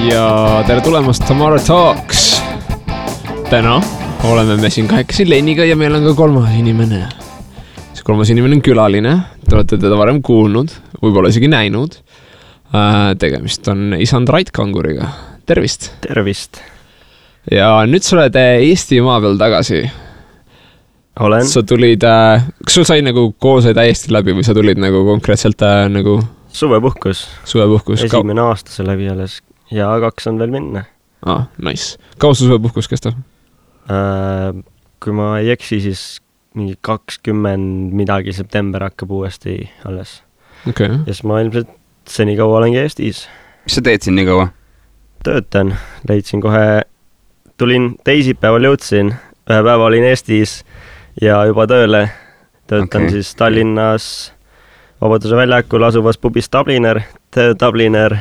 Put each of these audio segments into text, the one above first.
ja tere tulemast Tamara Talks. Täna oleme me siin kahekesi Leniga ja meil on ka kolmas inimene. See kolmas inimene on külaline, te olete teda varem kuulnud, võib-olla isegi näinud. Tegemist on isand Rait Kanguriga. Tervist! Tervist! Ja nüüd sa oled Eesti maa peal tagasi. Olen. Sa tulid, kas sul sai nagu kool sai täiesti läbi või sa tulid nagu konkreetselt nagu Suvepuhkus. Esimene aasta see läbi alles ja 2 on veel minna. Nice. Kaua su suvepuhkus kestab? Kui ma ei eksi, siis mingi 20 midagi september hakkab uuesti alles. Okay. Ja siis ma ilmselt seni kaua olengi Eestis. Mis sa teed siin nii kaua? Töötan. Leidsin kohe, tulin teisipäeval jõudsin, ühe päeva olin Eestis ja juba tööle. Töötan siis Tallinnas Vabaduse väljakul asuvas pubis Dubliner, Dubliner.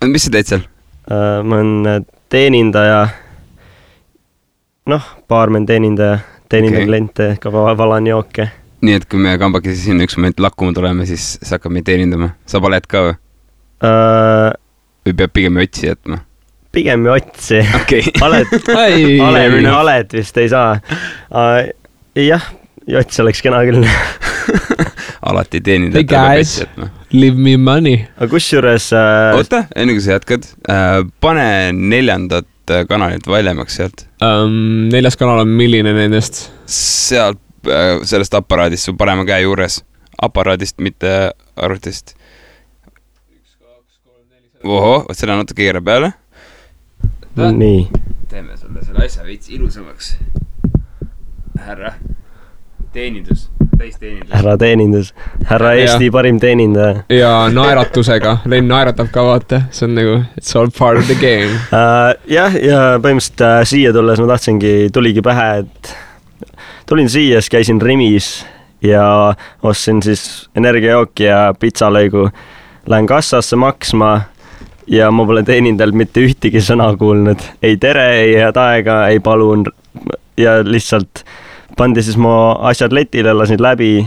Mis sa teed seal? Ma olen teenindaja, baarmen teenindaja, kliente, ka valan jooke. Nii et kui me kambakesi siin üks moment lakkuma tuleme, siis sa hakkab meid teenindama. Sa paled ka või? Või peab pigem otsi jätma? Pigem otsi. Okay. Aled vist ei saa. Jah, jots oleks kena küll. Alati teenindajad peab otsi jätma. Leave me money. Aga kusjuures... Oota, enne kui sa jätkad, pane 4. kanalit valjemaks sealt. 4. kanal on milline nendest? Sealt, sellest aparaadist, su parema käe juures. Aparaadist, mitte arvutist. 1, 2, 3, 4... Oho, selle natuke keera peale. Nii. Teeme sulle selle asja veits ilusamaks. Härra. Teenindus. Täisteenindus. Härra teenindus. Härra Eesti parim teenindaja. Ja naeratusega. Len naeratab ka vaata. See on nagu, it's all part of the game. Ja põhimõtteliselt siia tulles ma tuligi pähe, et tulin siia, siis käisin Rimis ja ostsin siis energiajooki ja pizzalõigu. Lähen kassasse maksma ja ma pole teenindajalt mitte ühtegi sõna kuulnud. Ei tere, ei head aega, ei palun ja lihtsalt pandi siis mu asjad letile, lasin läbi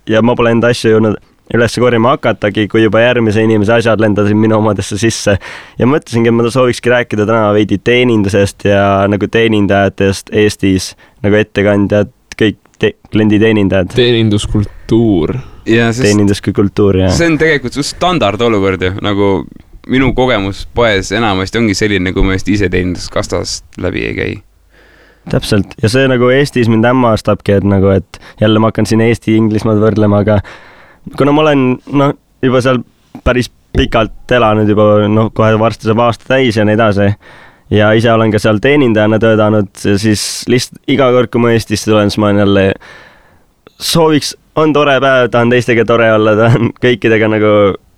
ja ma pole enda asju jõudnud üles korjama hakatagi, kui juba järgmise inimese asjad lendasid minu omadesse sisse. Ja mõtlesingi, et ma soovikski rääkida täna veidi teenindusest ja nagu teenindajatest Eestis, nagu ettekandjad, kõik klienditeenindajad. Teeninduskultuur. Teenindus kui kultuur, jah. See on tegelikult standard olukord ju, nagu minu kogemus poes enamasti ongi selline, kui ma just ise teeninduskastast läbi ei käi. Täpselt. Ja see nagu Eestis mind hämmastabki, et jälle ma hakkan siin Eesti-Inglismaad võrdlema, aga kuna ma olen juba seal päris pikalt elanud juba, kohe varsti saab aasta täis ja nii edasi ja ise olen ka seal teenindajana töötanud, siis lihtsalt iga kord, kui ma Eestisse tulen, siis ma jälle sooviks, on tore päev, tahan teistega tore olla, tahan kõikidega nagu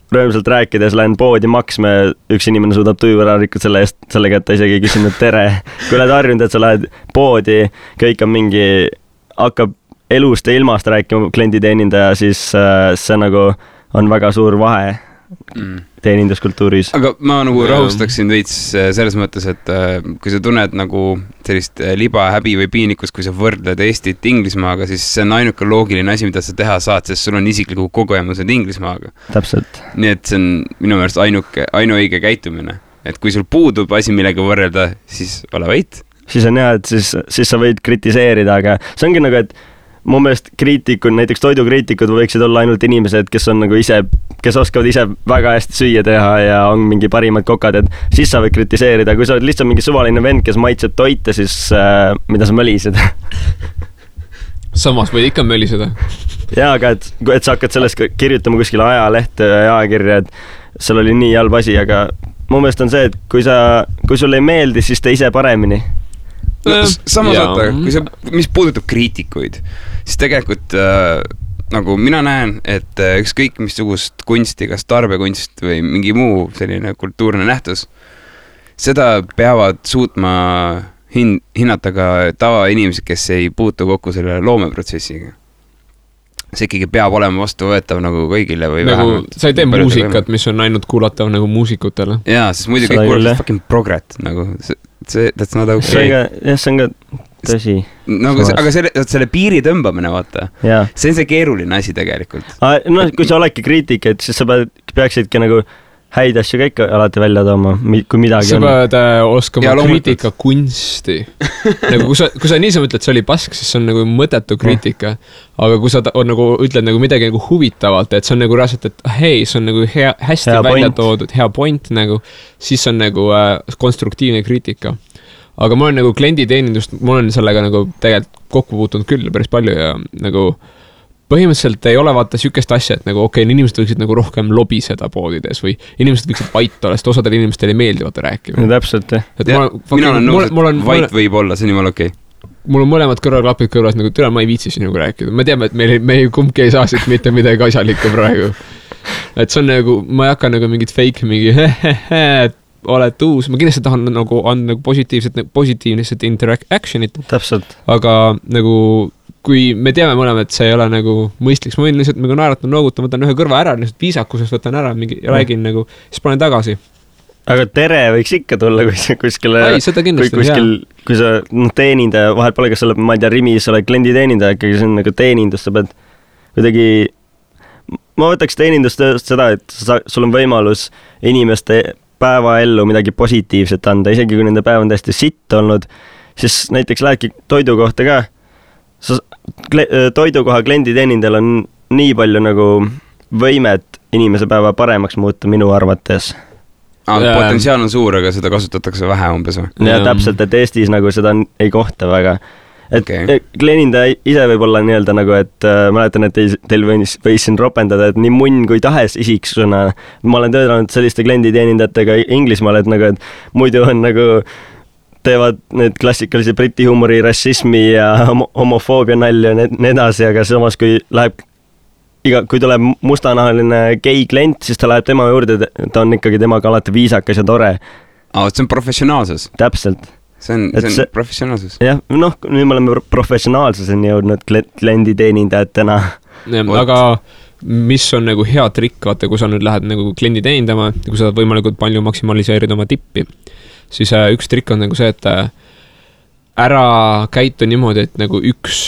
rõõmsalt rääkides, lähen poodi maksma ja üks inimene suudab tuju ära rikkuda selle eest, sellega, et ta isegi ei küsinud tere. Kui oled harjunud, et sa lähed poodi, kõik on mingi, hakkab elust ja ilmast rääkima klienditeenindaja, siis see nagu on väga suur vahe teeninduskultuuris. Aga ma nagu rahustaksin veits selles mõttes, et kui sa tunned nagu sellist liba, häbi või piinikust, kui sa võrdled Eestit Inglismaaga, siis see on ainuke loogiline asi, mida sa teha saad, sest sul on isikliku kogemused Inglismaaga. Täpselt. Nii et see on minu meelest ainuõige käitumine. Et kui sul puudub asi millega võrrelda, siis ole vait. Siis on hea, et siis sa võid kritiseerida, aga see ongi nagu, et mu meelest kriitikud, näiteks toidukriitikud võiksid olla ainult inimesed, kes on nagu ise, kes oskavad ise väga hästi süüa teha ja on mingi parimad kokad, et siis sa võid kritiseerida. Kui sa oled lihtsalt mingi suvaline vend, kes maitseb toite, siis mida sa mölised? Samas võid ikka möliseda. Jaa, aga et sa hakkad sellest kirjutama kuskile ajalehte ja ajakirja, et seal oli nii halb asi, aga mu meelest on see, et kui sul ei meeldi, siis tee ise paremini. Samas oota, mis puudutab kriitikuid, siis tegelikult nagu mina näen, et ükskõik missugust kunsti, kas tarbekunst või mingi muu selline kultuurne nähtus, seda peavad suutma hinnata ka tavainimesed, kes ei puutu kokku selle loomeprotsessiga. See ikkagi peab olema vastuvõetav nagu kõigile või nagu, vähemalt. Sa ei tee muusikat, mis on ainult kuulatav nagu muusikutele. Jaa, sest muidu kõik kuulatavad fucking progret nagu that's not okay. See on ka tõsi. No, aga selle piiri tõmbamine, vaata. See on see keeruline asi tegelikult. Kui sa oledki kriitik, et siis sa peaksidki nagu häid asju ka ikka alati välja tooma, kui midagi sa pead oskama kriitika kunsti. Nagu kui sa niisama ütled, see oli pask, siis see on nagu mõttetu kriitika. Aga kui sa nagu ütled nagu midagi nagu huvitavalt, et see on nagu reaalselt, et hei, see on nagu hästi hea välja toodud, hea point nagu, siis on nagu konstruktiivne kriitika. Aga ma olen nagu klienditeenindust, ma olen sellega nagu tegelikult kokku puutunud küll päris palju ja nagu põhimõtteliselt ei ole vaata sükest asja, et nagu inimesed võiksid nagu rohkem lobiseda poodides või inimesed võiksid vait olla, sest osadel inimestel ei meeldi vaata rääkima. No, täpselt, jah. Mina olen nõus, et vait võib olla, see on jumala okei. Mul on mõlemad kõrvaklapid kõrvas, nagu türa ma ei viitsi sinuga rääkida. Ma teame, et me kumbki ei saa siit mitte midagi asjalikku praegu. Et see on nagu, ma ei hakka nagu mingit fake, mingi oled uus. Ma kindlasti tahan nagu anda nagu positiivset interactionit. Täpselt. Aga nagu kui me teame mõlema, et see ei ole nagu mõistliks, ma võin lihtsalt nagu naeratama, noogutan, võtan ühe kõrva ära, lihtsalt viisakusest võtan ära, mingi räägin nagu, siis panen tagasi. Aga tere võiks ikka tulla, kui sa kuskile, kui sa teenindaja, vahel pole, kas sa oled, ma ei tea, Rimis oled klienditeenindaja, ikkagi see on nagu teenindus, sa pead kuidagi, ma võtaks teenindust seda, et sul on võimalus inimeste päevaellu midagi positiivset anda, isegi kui nende päev on täiesti sitt olnud, siis näiteks lähedki toidu kohta ka, toidukoha klienditeenindajal on nii palju nagu võimet inimese päeva paremaks muuta minu arvates. Potentsiaal on suur, aga seda kasutatakse vähe umbes või? Ja täpselt, et Eestis nagu seda ei kohta väga. Et kliendindaja ise võib olla nii-öelda nagu, et mäletan, et teil võis siin ropendada, et nii munn kui tahes isiksuna. Ma olen töötanud selliste klienditeenindajatega Inglismaal, et nagu, et muidu on nagu teevad need klassikalise briti huumori, rassismi ja homofoobia nalja ja nii edasi, aga samas kui tuleb mustanahaline gei klient, siis ta läheb tema juurde, ta on ikkagi temaga alati viisakas ja tore. See on professionaalsus. Täpselt. See on professionaalsus. Jah, nüüd me oleme professionaalsuseni jõudnud klienditeenindajatena. Aga mis on nagu hea trikk, vaata, kui sa nüüd lähed nagu kliendi teenindama, kui sa võimalikult palju maksimaliseerid oma tippi, siis üks trikk on nagu see, et ära käitu niimoodi, et nagu üks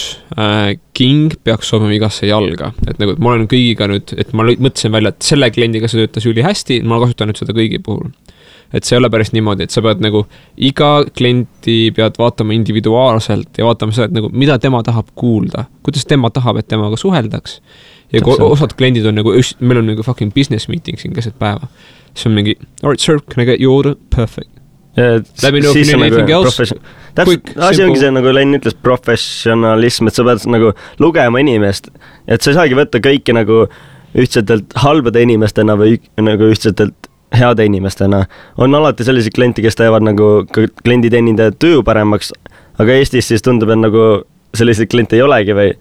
king peaks sobima igasse jalga. Et nagu, et ma olen kõigiga nüüd, et ma mõtlesin välja, et selle kliendiga see töötas üli hästi, ma kasutan nüüd seda kõigi puhul. Et see ei ole päris niimoodi, et sa pead nagu iga klienti pead vaatama individuaalselt ja vaatama seda, et nagu, mida tema tahab kuulda, kuidas tema tahab, et temaga suheldaks. Ja osad kliendid on nagu, meil on nagu fucking business meeting siin keset päeva. See on mingi, all right, sir, can I get your order? Perfect. Let me know if you need anything else. Asi ongi see, nagu Len ütles, professionalism, et sa pead nagu lugema inimest, et sa ei saagi võtta kõiki nagu ühtsetelt halbade inimestena või nagu ühtsetelt heade inimestena. On alati sellised klienti, kes teevad nagu klienditeenindaja töö paremaks, aga Eestis siis tundub, et nagu selliseid kliente ei olegi või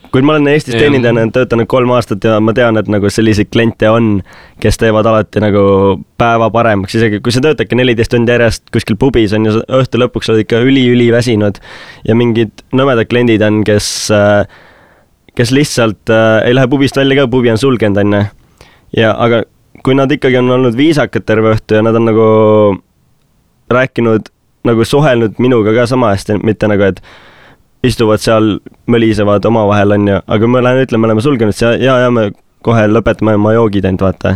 kui ma olen Eestis teenindajana töötanud 3 aastat ja ma tean, et nagu selliseid kliente on, kes teevad alati nagu päeva paremaks, isegi kui sa töötadki 14 tundi järjest kuskil pubis on ja õhtu lõpuks oled ikka üli väsinud ja mingid nõmedad kliendid on, kes lihtsalt ei lähe pubist välja ka, pubi on sulgenud on ja aga kui nad ikkagi on olnud viisakad terve õhtu ja nad on nagu rääkinud, nagu suhelnud minuga ka sama hästi, mitte nagu, et istuvad seal, mölisevad omavahel on ju, aga me oleme sulgenud ja me kohe lõpetame oma joogid ainult vaata.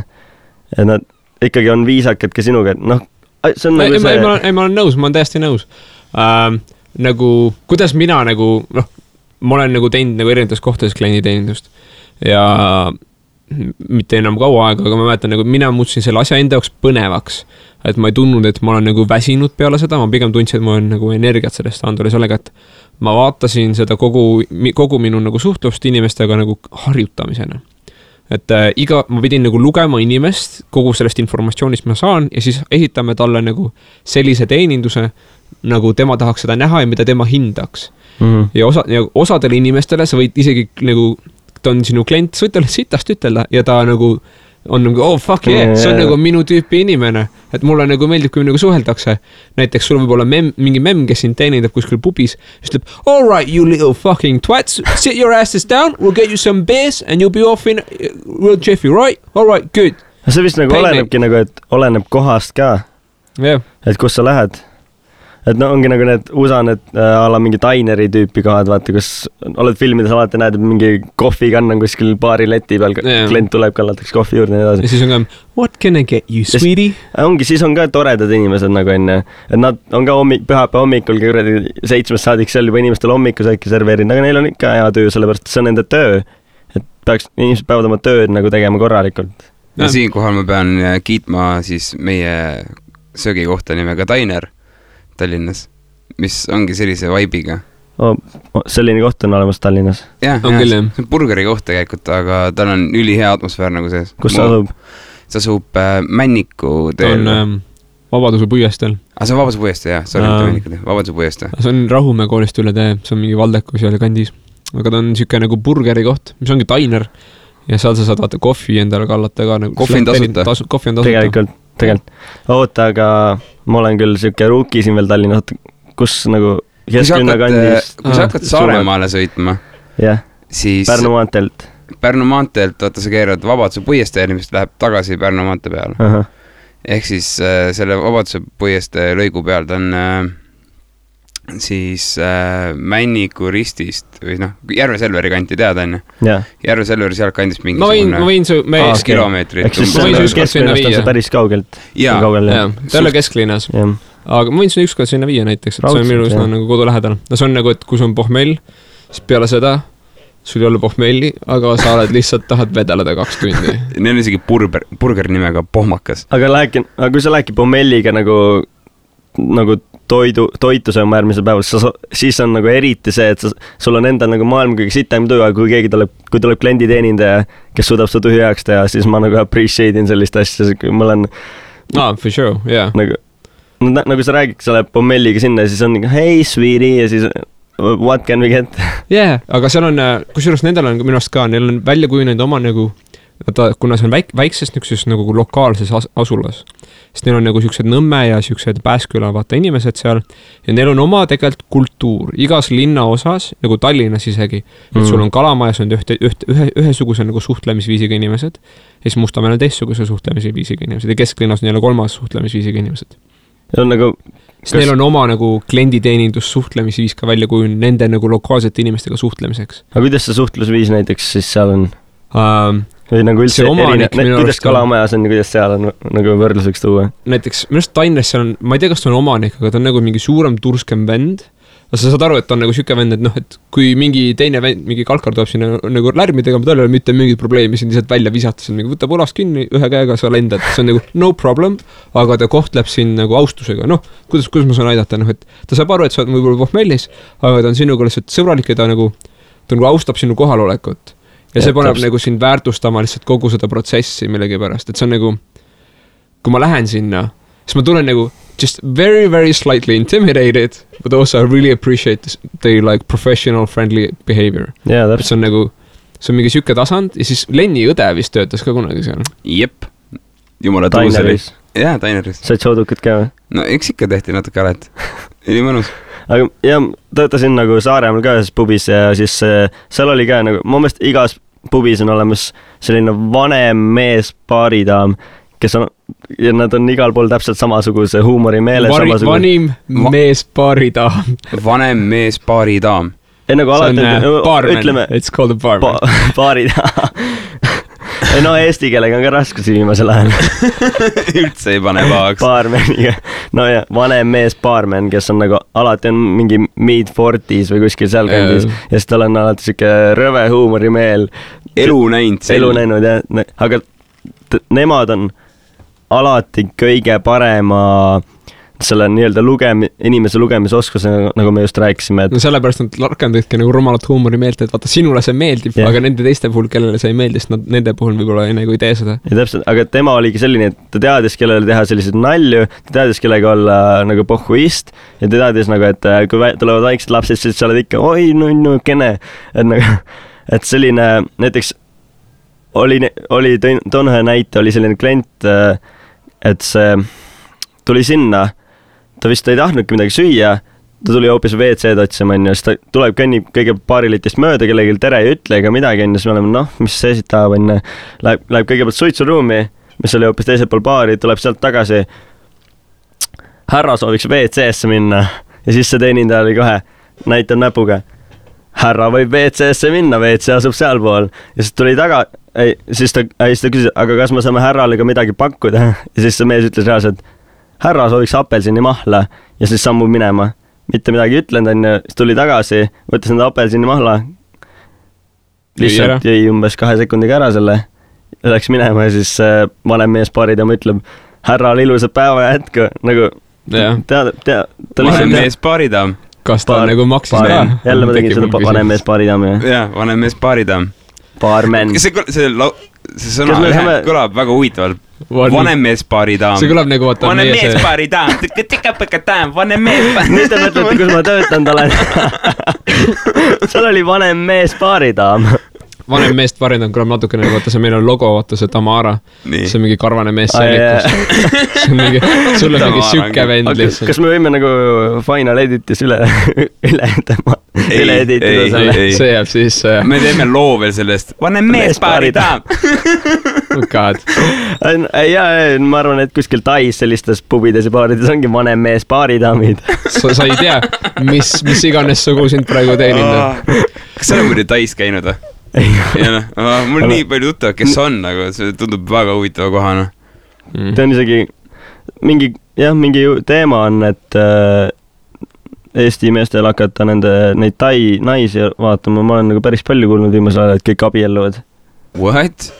Ja nad ikkagi on viisakad ka sinuga, et see on nagu see... Ma olen nõus, ma olen täiesti nõus. Nagu, kuidas mina nagu, ma olen nagu teinud nagu erinevates kohtades klienditeenindust ja mitte enam kaua aega, aga ma mäletan, nagu mina muutsin selle asja enda jaoks põnevaks, et ma ei tundnud, et ma olen nagu väsinud peale seda, ma pigem tundsin, et ma olen nagu energiat sellest andule sellega, et ma vaatasin seda kogu minu nagu suhtlust inimestega nagu harjutamisena. Et ma pidin nagu lugema inimest kogu sellest informatsioonist ma saan ja siis esitame talle nagu sellise teeninduse, nagu tema tahaks seda näha ja mida tema hindaks. Ja osadele inimestele sa võid isegi nagu ta on sinu klient, sa võid talle sitast ütelda ja ta nagu on nagu, oh fuck yeah, see on nagu minu tüüpi inimene, et mulle nagu meeldib, kui nagu suheldakse. Näiteks sul võib olla mingi mem, kes sind teenindab kuskil pubis, ütleb, all right, you little fucking twats, sit your asses down, we'll get you some beers and you'll be off in real jiffy, right? All right, good. See vist nagu olenebki nagu, et oleneb kohast ka, et kus sa lähed. et no ongi nagu need USA need ala mingi dineri tüüpi kohad, vaata, kus oled filmides alati näed, mingi kohvikann on kuskil baari leti peal, klient tuleb, kallatakse kohvi juurde ja nii edasi. Ja siis on ka, what can I get you, sweetie? Ongi, siis on ka toredad inimesed nagu enne, et nad on ka pühapäeva hommikul 7 saadik seal juba inimestele hommikusööki serveerinud, aga neil on ikka hea töö, sellepärast see on nende töö, et inimesed peavad oma tööd nagu tegema korralikult. Ja siinkohal ma pean kiitma siis meie söögikohta nimega Diner Tallinnas, mis ongi sellise vibe'iga. Selline koht on olemas Tallinnas. Jah, see on burgeri koht tegelikult, aga tal on ülihea atmosfäär nagu sees. Kus sa asub? See asub Männiku teel. Ta on Vabaduse puiesteel. See on Vabaduse puiesteel, jah. Vabaduse puiesteel. See on Rahumäe koolist üle tee, see on mingi Valdeku seal kandis. Aga ta on siuke nagu burgeri koht, mis ongi Diner. Ja seal sa saad vaata kohvi endale kallata ka nagu. Kohvi on tasuta. Kohvi on tasuta. Tegelikult. Oota, aga ma olen küll siuke ruuki siin veel Tallinna, kus nagu kesklinna kandis. Kui sa hakkad Saaremaale sõitma, siis Pärnu maanteelt. Vaata sa keerad Vabaduse puiesteel, mis läheb tagasi Pärnu maante peale. Ehk siis selle Vabaduse puiestee lõigu peal ta on siis Männiku ristist või Järve Selveri kanti teada enne. Järve Selveri sealt kandis mingi ma võin su kilomeetrit. Ehk siis kesklinnast on see päris kaugelt. Jaa, ta ei ole kesklinnas. Aga ma võin su ükskord sinna viia näiteks, et see on minu üsna nagu kodu lähedal. See on nagu, et kui sul on pohmell, siis peale seda sul ei ole pohmelli, aga sa oled lihtsalt tahad vedeleda 2 tundi. Neil on isegi burger nimega pohmakas. Aga kui sa lähedki pohmelliga nagu toitu sööma järgmisel päeval, siis on nagu eriti see, et sul on endal nagu maailma kõige sitem töö, aga kui tuleb klienditeenindaja, kes suudab seda tühjaks teha, siis ma nagu appreciate in sellist asja, ma olen for sure, yeah. Nagu sa räägid, sa lähed pommelliga sinna ja siis on nagu hey sweetie ja siis what can we get? Aga seal on, kusjuures nendel on minu arust ka, neil on välja kujunenud oma nagu kuna see on väikses nagu lokaalses asulas, sest neil on nagu siuksed Nõmme ja siuksed Pääsküla vaata inimesed seal ja neil on oma tegelikult kultuur igas linna osas, nagu Tallinnas isegi, et sul on Kalamajas on ühesuguse nagu suhtlemisviisiga inimesed ja siis Mustamäel on teistsuguse suhtlemisviisiga inimesed ja kesklinnas on jälle 3. suhtlemisviisiga inimesed. Ja on nagu neil on oma nagu klienditeenindus suhtlemisviis ka välja kujunenud nende nagu lokaalsete inimestega suhtlemiseks. Aga kuidas see suhtlusviis näiteks siis seal on? Või nagu üldse kuidas Kalamajas on ja kuidas seal on nagu võrdluseks tuua? Näiteks, minu arust Tallinnas seal on, ma ei tea, kas ta on omanik, aga ta on nagu mingi suurem turskem vend. Sa saad aru, et ta on nagu siuke vend, et et kui mingi teine vend, mingi kalkar tuleb sinna nagu lärmi tegema, tal ei ole mitte mingit probleemi, siin lihtsalt välja visata, see on nagu võtab ulast kinni, ühe käega sa lendad, see on nagu no problem, aga ta kohtleb siin nagu austusega, kuidas ma saan aidata, et ta saab aru, et sa oled võib-olla pohmellis, aga ta on sinuga lihtsalt sõbralik ja ta nagu austab sinu kohalolekut. Ja see paneb nagu sind väärtustama lihtsalt kogu seda protsessi millegi pärast, et see on nagu, kui ma lähen sinna, siis ma tulen nagu just very, very slightly intimidated, but also I really appreciate the like professional friendly behavior. See on nagu, see on mingi siuke tasand ja siis Lenni õde vist töötas ka kunagi seal. Jep, jumala tuuselis. Jaa, Taineris. Said soodukad ka või? No eks ikka tehti natuke alet. Oli mõnus. Aga jah, töötasin nagu Saaremaal ka ühes pubis ja siis seal oli ka nagu, mu meelest igas pubis on olemas selline vanem mees baaridaam, kes on, ja nad on igal pool täpselt samasuguse huumori meele. Vanim mees baaridaam. Vanem mees baaridaam. Nagu alati, barman, ütleme, it's called a barman. Baaridaam. No eesti keelega on ka raskusi viimasel ajal. Üldse ei pane pahaks. Baarmeniga. No ja vanem mees baarmen, kes on nagu alati on mingi mid-40s või kuskil seal kandis ja siis tal on alati siuke rõve huumorimeel. Elu näinud, jah. Aga nemad on alati kõige parema selle nii-öelda inimese lugemisoskuse, nagu me just rääkisime. No sellepärast nad rakendavadki nagu rumalat huumori meelt, et vaata, sinule see meeldib, aga nende teiste puhul, kellele see ei meeldi, sest nende puhul võib-olla nagu ei tee seda. Ja täpselt, aga tema oligi selline, et ta teadis, kellele teha sellised nalju, ta teadis, kellega olla nagu pohhuist ja ta teadis nagu, et kui tulevad väiksed lapsed, siis sa oled ikka, oi, no, kene. Et selline, näiteks oli toon ühe näite, oli selline klient, et see tuli sinna, ta vist ei tahtnudki midagi süüa, ta tuli hoopis WC-d otsima, siis ta tuleb kõnnib kõige paarilitist mööda, kellegi tere ei ütle ega midagi, siis me oleme, mis see siit tahab, läheb kõigepealt suitsuruumi, mis oli hoopis teisel pool baari, tuleb sealt tagasi. härra sooviks WC-sse minna ja siis see teenindaja oli kohe, näitab näpuga. Härra võib WC-sse minna, WC asub sealpool ja siis tuli taga, siis ta küsis, aga kas me saame härrale ka midagi pakkuda ja siis see mees ütles reaalselt, härra sooviks apelsini mahla ja siis sammub minema. Mitte midagi ütlenud on ja siis tuli tagasi, võttis enda apelsini mahla, lihtsalt jäi umbes 2 sekundiga ära selle, läks minema ja siis vanem mees paaridama ütleb, härral ilusat päeva ja jätku, nagu vanem mees paaridam. Kas ta nagu maksis ka? Jälle ma tegin seda vanem mees paaridam. Jah, vanem mees paaridam. Baarmen. See sõna kõlab väga huvitavalt. Vanem mees paaridam. See kõlab nagu vaata vanem mees paaridam. Tükka-pükka-tam, vanem mees paaridam. Nüüd te mõtlete, kus ma töötanud olen. Seal oli vanem mees paaridam. Vanem meest paaridam kõlab natukene, vaata see meil on logo, vaata see Tamara. See on mingi karvane mees sellikus. See on mingi, sul on mingi sükke vend lihtsalt. Kas me võime nagu Final Editis üle editida selle? See jääb siis... Me teeme loo veel sellest. Vanem mees paaridam. Oh god. Ja, ma arvan, et kuskil Tais sellistes pubides ja baarides ongi vanem mees paaridamid. Sa ei tea, mis iganes sugu sind praegu teeninda. Kas sa oled muidu Tais käinud? Mul nii palju tuttav, kes on, aga see tundub väga huvitava kohana. Ta on isegi mingi teema on, et Eesti meestel hakata neid Tai naisi vaatama. Ma olen nagu päris palju kuulnud viimasel ajal, et kõik abielluvad. What?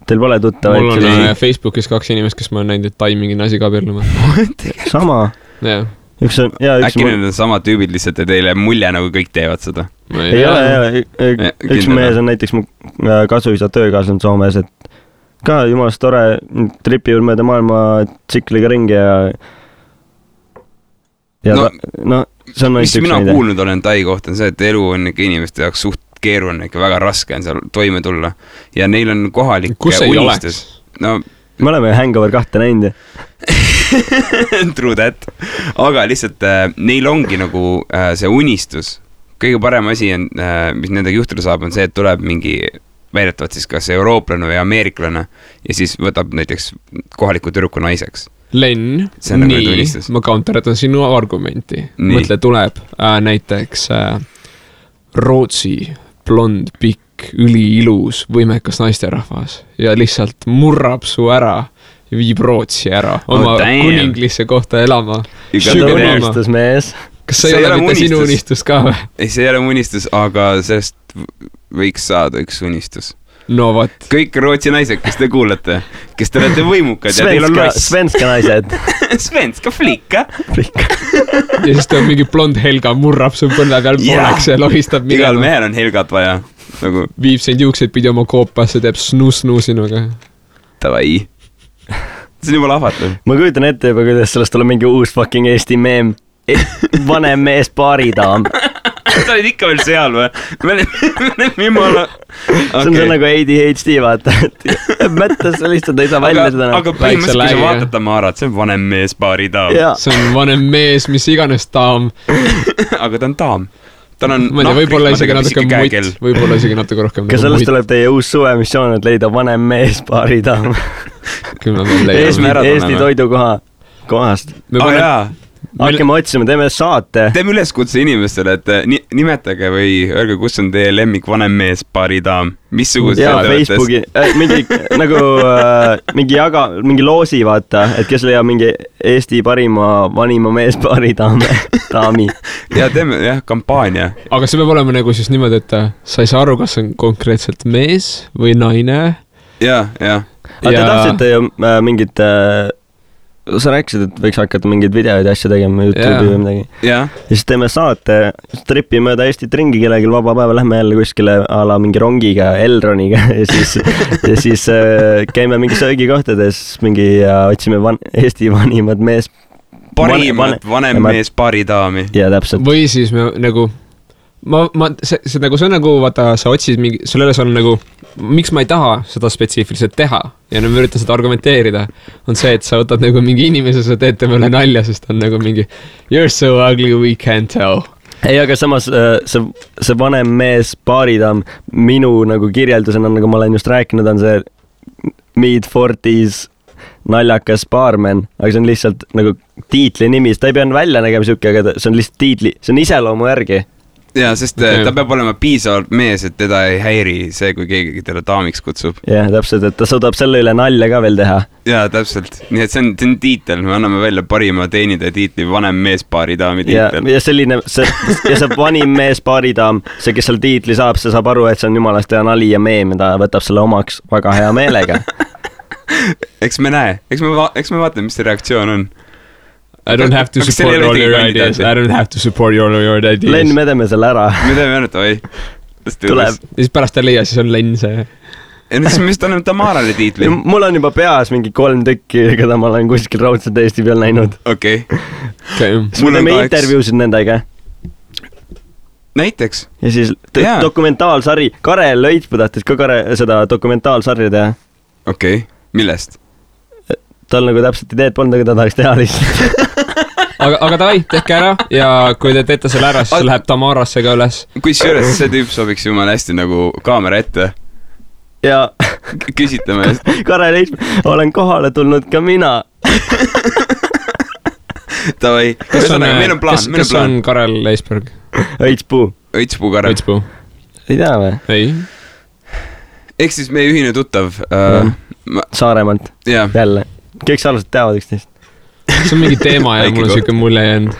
Teil pole tuttavaid? Mul on Facebookis 2 inimest, kes ma olen näinud, et Tai mingi naisiga abielluma. Sama? Jah. Äkki need on sama tüübid lihtsalt ja teile mulje nagu kõik teevad seda? Ei ole, üks mees on näiteks mu kasuisa töökaasland Soomes, et ka jumalast tore tripivad mööda maailma tsikliga ringi ja see on mis mina kuulnud olen Tai kohta, on see, et elu on ikka inimeste jaoks suht keeruline, ikka väga raske on seal toime tulla ja neil on kohalik unistus. Me oleme Hangover 2 näinud. True that. Aga lihtsalt neil ongi nagu see unistus. Kõige parem asi on, mis nendega juhtuda saab, on see, et tuleb mingi väidetavalt siis kas eurooplane või ameeriklane ja siis võtab näiteks kohaliku tüdruku naiseks. Len, nii, ma counteratan sinu argumenti. Mõtle, tuleb näiteks Rootsi blond, pikk, üliilus, võimekas naisterahvas ja lihtsalt murrab su ära ja viib Rootsi ära oma kuninglisse kohta elama. Unistus mees. Kas see ei ole mitte sinu unistus ka või? Ei, see ei ole unistus, aga sellest võiks saada üks unistus. No vat. Kõik Rootsi naised, kes te kuulete, kes te olete võimukad ja teil on loss. Svenska naised. Svenska flikka. Ja siis ta mingi blond Helga murrab su põnne peal poleks ja lohistab minema. Igal mehel on Helgat vaja. Viib sind juukseid pidi oma koopasse, teeb snuu sinuga. Tavai. See on juba lahvatav. Ma kujutan ette juba, kuidas sellest tuleb mingi uus fucking Eesti meem. Vanem mees paaridaam. Sa olid ikka veel seal või? Me oleme jumala... See on nagu ADHD, vaata. Mõttes lihtsalt ei saa välja seda. Aga põhimõtteliselt, kui sa vaatad Tamarat, see on vanem mees paaridaam. See on vanem mees, mis iganes daam. Aga ta on daam. Ta on võib-olla isegi natuke mutt. Võib-olla isegi natuke rohkem. Kas sellest tuleb teie uus suvemissioon, et leida vanem mees paaridaam? Eesti toidukohast. Hakkame otsima, teeme saate. Teeme üleskutse inimestele, et nimetage või öelge, kus on teie lemmik vanem mees paaridaam. Missugused Facebooki, mingi loosi, vaata, et kes leiab mingi Eesti parima vanima mees paaridaami. Ja teeme kampaania. Aga see peab olema nagu siis niimoodi, et sa ei saa aru, kas on konkreetselt mees või naine. Ja. Aga te tahtsite ju mingit... Sa rääkisid, et võiks hakata mingeid videoid ja asja tegema YouTube'i või midagi. Ja siis teeme saate, tripi mööda Eestit ringi kellelgi vaba päeva, lähme jälle kuskile a la mingi rongiga, Elroniga ja siis käime mingi söögikohtades ja otsime Eesti vanimad mees. Vanem mees paaridaami. Ja täpselt. Või siis me nagu... see on nagu, vaata, sa otsid mingi, sellele on nagu, miks ma ei taha seda spetsiifiliselt teha ja nüüd ma üritan seda argumenteerida, on see, et sa võtad nagu mingi inimese, sa teed temale nalja, sest on nagu mingi you're so ugly, we can't tell. Ei, aga samas see vanem mees paaridaam minu nagu kirjeldusena, nagu ma olen just rääkinud, on see mid-40s naljakas baarmen, aga see on lihtsalt nagu tiitli nimi, ta ei pea välja nägema siuke, aga see on lihtsalt tiitli, see on iseloomu järgi. Jaa, sest ta peab olema piisavalt mees, et teda ei häiri see, kui keegi teda daamiks kutsub. Jah, täpselt, et ta suudab selle üle nalja ka veel teha. Jaa, täpselt. Nii et see on tiitel, me anname välja parima teenida tiitli vanem meespaari daami tiitel. Ja selline, see vanim meespaaridaam, see, kes seal tiitli saab, see saab aru, et see on jumalast hea nali ja meem, ta võtab selle omaks väga hea meelega. Eks me näe, eks me vaatame, mis see reaktsioon on. I don't have to support all your ideas. I don't have to support all your ideas. Lenn, me teeme selle ära. Me teeme ainult, oi. Tuleb. Ja siis pärast ta leia, siis on Lenn see. Ja nüüd siis anname Tamarale tiitli. Mul on juba peas mingi 3 tükki, keda ma olen kuskil raudselt Eesti peal näinud. Okei. Mul teeme intervjuusid nendega. Näiteks. Ja siis dokumentaalsari. Karel Lõitpuu tahtis ka seda dokumentaalsarja teha. Okei. Millest? Tal nagu täpselt ideed polnud, aga ta tahaks teha lihtsalt. aga davai, tehke ära ja kui te teete selle ära, siis läheb Tamarasse ka üles. Kusjuures see tüüp sobiks jumala hästi nagu kaamera ette. Ja küsitame. Karel Lõitpuu, olen kohale tulnud ka mina. Davai. Meil on plaan. Kes on Karel Lõitpuu? Õitspuu Karel. Ei tea või? Ei. Ehk siis meie ühine tuttav Saaremaalt. Jälle. Kõik sarnased teavad üksteist. See on mingi teema ja mul on siuke mulje jäänud.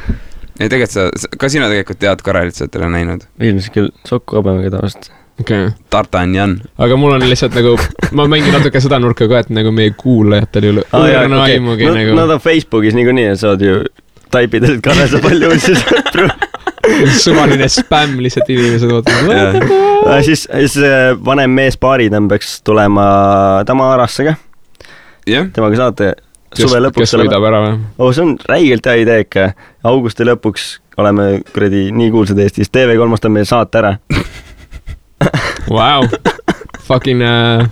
Ja tegelikult ka sina tegelikult tead Karelit, sa oled teda näinud. Ilmselt küll Sokku Abemaga tavaliselt. Okay. Tartanjan. Aga mul on lihtsalt nagu, ma mängin natuke seda nurka ka, et nagu meie kuulajatel ei ole õrna aimugi nagu. Nad on Facebookis niikuinii, et saad ju taipida, et Karel sa palju sõpru. Suvaline spämm lihtsalt inimesed ootavad. Siis vanem mees paaridam peaks tulema Tamarasse ka. Temaga saate suve lõpuks. Kes võidab ära või? See on räigelt hea idee ikka. Augusti lõpuks oleme kuradi nii kuulsad Eestis. TV3 on meil saate ära. Wow. Fucking,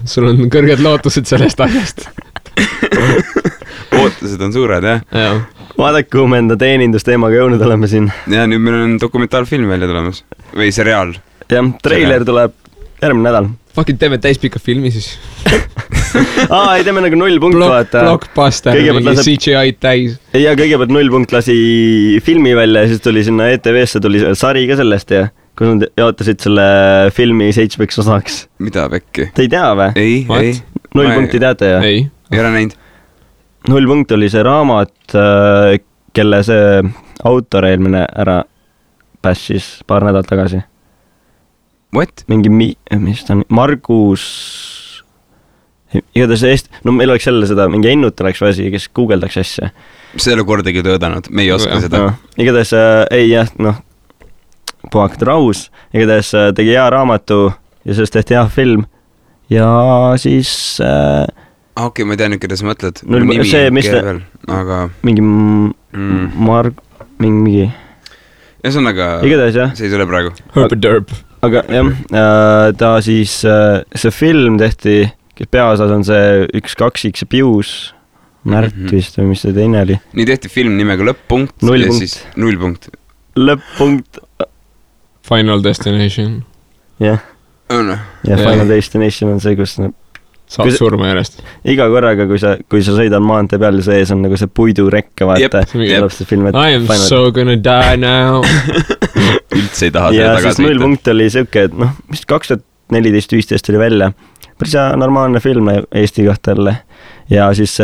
sul on kõrged lootused sellest asjast. Ootused on suured, jah? Vaadake, kuhu me enda teenindusteemaga jõudnud oleme siin. Ja nüüd meil on dokumentaalfilm välja tulemas. Või seriaal. Jah, treiler tuleb järgmine nädal. Fucking teeme täispika filmi siis. Ei teeme nagu 0 punkt vaata. Blockbuster, mingi CGI täis. Ja kõigepealt 0 punkt lasi filmi välja ja siis tuli sinna ETV-sse tuli sari ka sellest ja kus nad jaotasid selle filmi 7 osaks. Mida pekki? Te ei tea või? Ei. 0 punkti teate ja? Ei ole näinud. 0 punkt oli see raamat, kelle see autor eelmine ära passis paar nädalt tagasi. What? Mingi, mis ta on, Margus, igatahes meil oleks jälle seda, mingi Ennut oleks väsi, kes guugeldaks asja. See ei ole kordagi töödanud, me ei oska seda. Igatahes, puhakad rahus, igatahes tegi hea raamatu ja sellest tehti hea film ja siis... Okei, ma ei tea nüüd, keda sa mõtled. Aga... Mingi mingi... Ühesõnaga, see ei tule praegu. Herb. Aga jah, ta siis, see film tehti, kes peaosas on see 1-2X Pius, Märt vist või mis see teine oli. Nii tehti film nimega Lõpp-punkt ja siis 0 punkt. Lõpp-punkt. Final Destination. Jah. Ja Final Destination on see, kus saab surma järjest. Iga korraga, kui sa sõidad maantee peal ja sees on nagu see puidurekke, vaata. I am so gonna die now. Üldse ei taha seda tagasi. Ja siis 0 punkt oli siuke, et vist 2014-15 oli välja. Päris normaalne film Eesti kohta jälle. Ja siis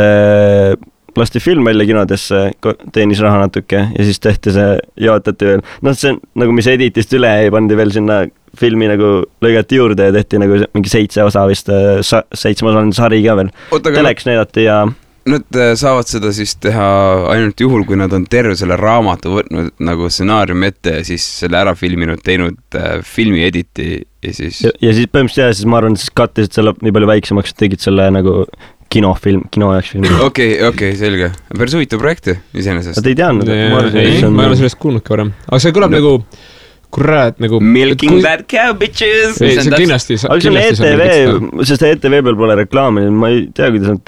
lasti film välja kinodesse, teenis raha natuke ja siis tehti see, jaotati veel. See nagu mis editist üle ei pandi veel sinna filmi nagu lõigati juurde ja tehti nagu mingi 7 osa vist, 7 osaline sari ka veel. Teleks näidati ja... Nad saavad seda siis teha ainult juhul, kui nad on terve selle raamatu võtnud nagu stsenaariumi ette ja siis selle ära filminud, teinud filmi editi ja siis... Ja siis põhimõtteliselt siis ma arvan, siis kattisid selle nii palju väiksemaks, et tegid selle nagu kino jaoks filmi. Okei, selge. Päris huvitav projekti iseenesest. Te ei teadnud? Ei, ma ei ole sellest kuulnud ka varem. Aga see kõlab nagu... Kurat, nagu... Milking that cow, bitches! Ei, see kindlasti... Aga see on ETV, sest ETV peal pole reklaami, ma ei tea, kuidas nad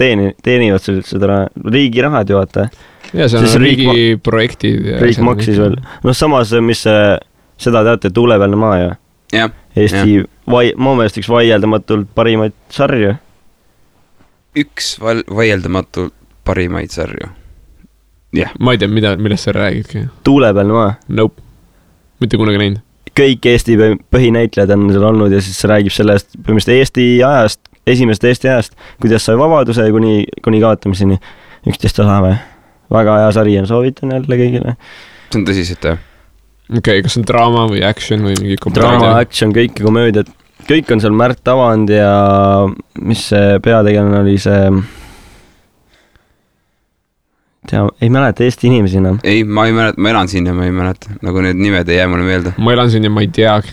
teenivad seda riigi rahad ju, vaata. Ja see on riigi projektid. Riik maksis veel. Samas, mis seda teate, Tuulepealne maa ju. Eesti, ma meelest üks vaieldamatult parimaid sarju. Üks vaieldamatult parimaid sarju. Jah. Ma ei tea, millest sa räägidki. Tuulepealne maa. Nope. Mitte kunagi näinud. Kõik Eesti põhinäitlejad on seal olnud ja siis räägib sellest põhimõtteliselt Eesti ajast, esimesest Eesti ajast, kuidas sai vabaduse kuni kaotamiseni. 11 osa või? Väga hea sari on, soovitan jälle kõigile. See on tõsiselt, jah. Okei, kas on draama või action või mingi komöödia? Draama, action, kõik komöödiad. Kõik on seal Märt Avand ja mis see peategelane oli see... ei mäleta Eesti inimesi enam. Ei, ma ei mäleta, ma elan siin ja ma ei mäleta. Nagu need nimed ei jää mulle meelde. Ma elan siin ja ma ei teagi.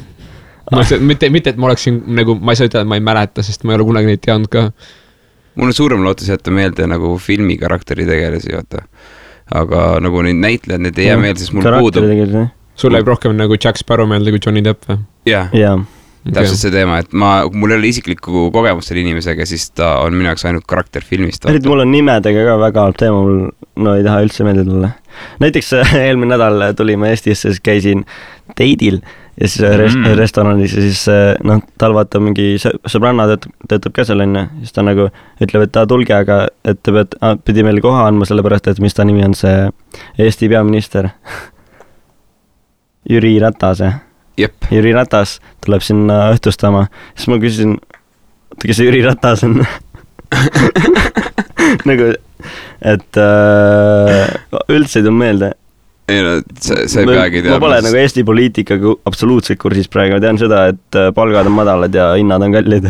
Mitte, et ma oleksin nagu, ma ei saa ütelda, et ma ei mäleta, sest ma ei ole kunagi neid teadnud ka. Mul on suurem lootus jätta meelde nagu filmi karakteri tegelasi, vaata. Aga nagu neid näitlejad, need ei jää meelde, sest mul puudub. Sul läheb rohkem nagu Jack Sparrow meelde kui Johnny Depp või? Jah. Täpselt see teema, et mul ei ole isiklikku kogemust selle inimesega, siis ta on minu jaoks ainult karakter filmist. Mul on nimedega ka väga halb teema, mul ei taha üldse meelde tulla. Näiteks eelmine nädal tulime Eestisse, siis käisin teidil ja siis restoranis ja siis tal vaata mingi sõbranna töötab ka seal enne, siis ta nagu ütleb, et ta tulge, aga et ta pidi meile koha andma sellepärast, et mis ta nimi on see Eesti peaminister Jüri Ratas. Jep. Jüri Ratas tuleb sinna õhtustama. Siis ma küsisin, kes see Jüri Ratas on? nagu, et üldse ei tulnud meelde. Ei no, see ei peagi teadma. Ma pole nagu Eesti poliitikaga absoluutselt kursis praegu. Ma tean seda, et palgad on madalad ja hinnad on kallid.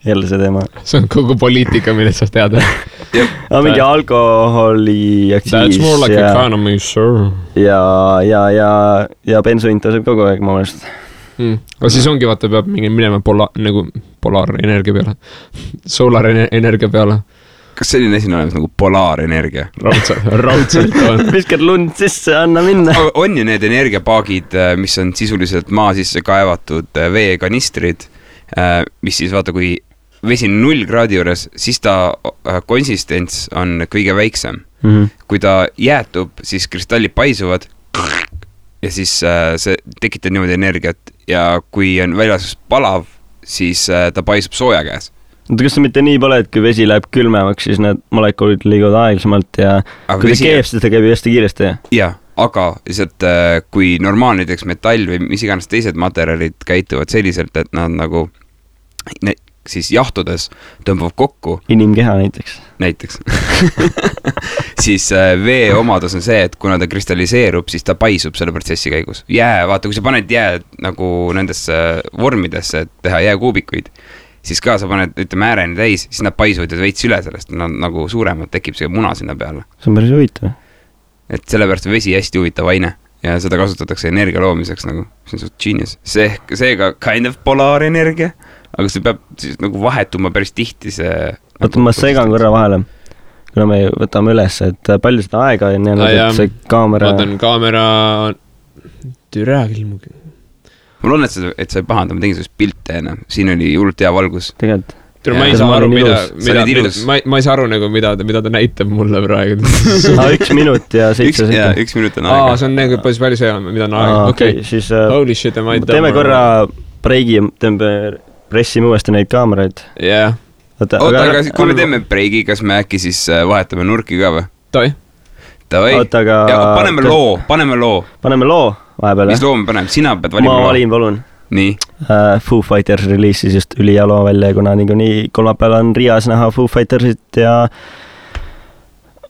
Jälle see teema. See on kogu poliitika, millest sa tead. Mingi alkoholi aktsiis. That's more like economy, sure. Ja bensuint tõuseb kogu aeg, ma mõelest. Aga siis ongi, vaata, peab minema nagu polaarenergia peale. Solarenergia peale. Kas selline asi on olemas nagu polaarenergia? Raudselt on. Viskad lund sisse, anna minna. On ju need energiapaagid, mis on sisuliselt maa sisse kaevatud veekanistrid, mis siis vaata, kui vesi 0 kraadi juures, siis ta konsistents on kõige väiksem. Kui ta jäätub, siis kristallid paisuvad ja siis see tekitab niimoodi energiat ja kui on väljas palav, siis ta paisub sooja käes. Kas see mitte nii pole, et kui vesi läheb külmemaks, siis need molekulid liiguvad aeglasemalt ja kui ta keeb, siis ta käib hästi kiiresti? Jah, aga lihtsalt kui normaalne näiteks metall või mis iganes teised materjalid käituvad selliselt, et nad nagu siis jahtudes tõmbab kokku. Inimkeha näiteks. Siis vee omadus on see, et kuna ta kristalliseerub, siis ta paisub selle protsessi käigus. Vaata, kui sa paned jää nagu nendesse vormidesse, et teha jääkuubikuid, siis ka sa paned, ütleme, ääreni täis, siis nad paisuvad ja veits üle sellest, nad nagu suuremad, tekib see muna sinna peale. See on päris huvitav. Et sellepärast on vesi hästi huvitav aine ja seda kasutatakse energia loomiseks nagu, see on suht genius. Seega kind of polaarenergia, aga see peab siis nagu vahetuma päris tihti see... Oota, ma segan korra vahele, kuna me võtame üles, et palju seda aega on jäänud, et see kaamera... Vaatan kaamera... Türa küll mugi. Ma loodan, et sa ei pahanda, ma tegin sellest pilte enne. Siin oli hullult hea valgus. Tegelikult. Ma ei saa aru, ma ei saa aru nagu, mida ta näitab mulle praegu. 1 minut ja 7 sekund. 1 minut on aega. See on nagu palju see on, mida on aega. Okei, siis holy shit, teeme korra breigi, teeme pressime uuesti neid kaameraid. Jah. Oota, aga kui me teeme breigi, kas me äkki siis vahetame nurki ka või? Toi. Ja paneme loo. Paneme loo vahepeal. Mis loo me paneme? Sina pead valima loo. Ma valin, palun. Nii. Foo Fighters releasis just ülihea loo välja, kuna nii kolmapäeval on Rias näha Foo Fightersit ja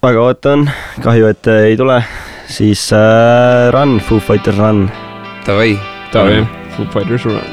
väga ootan, kahju, et ei tule, siis Run, Foo Fighters Run. Tavai. Foo Fighters Run.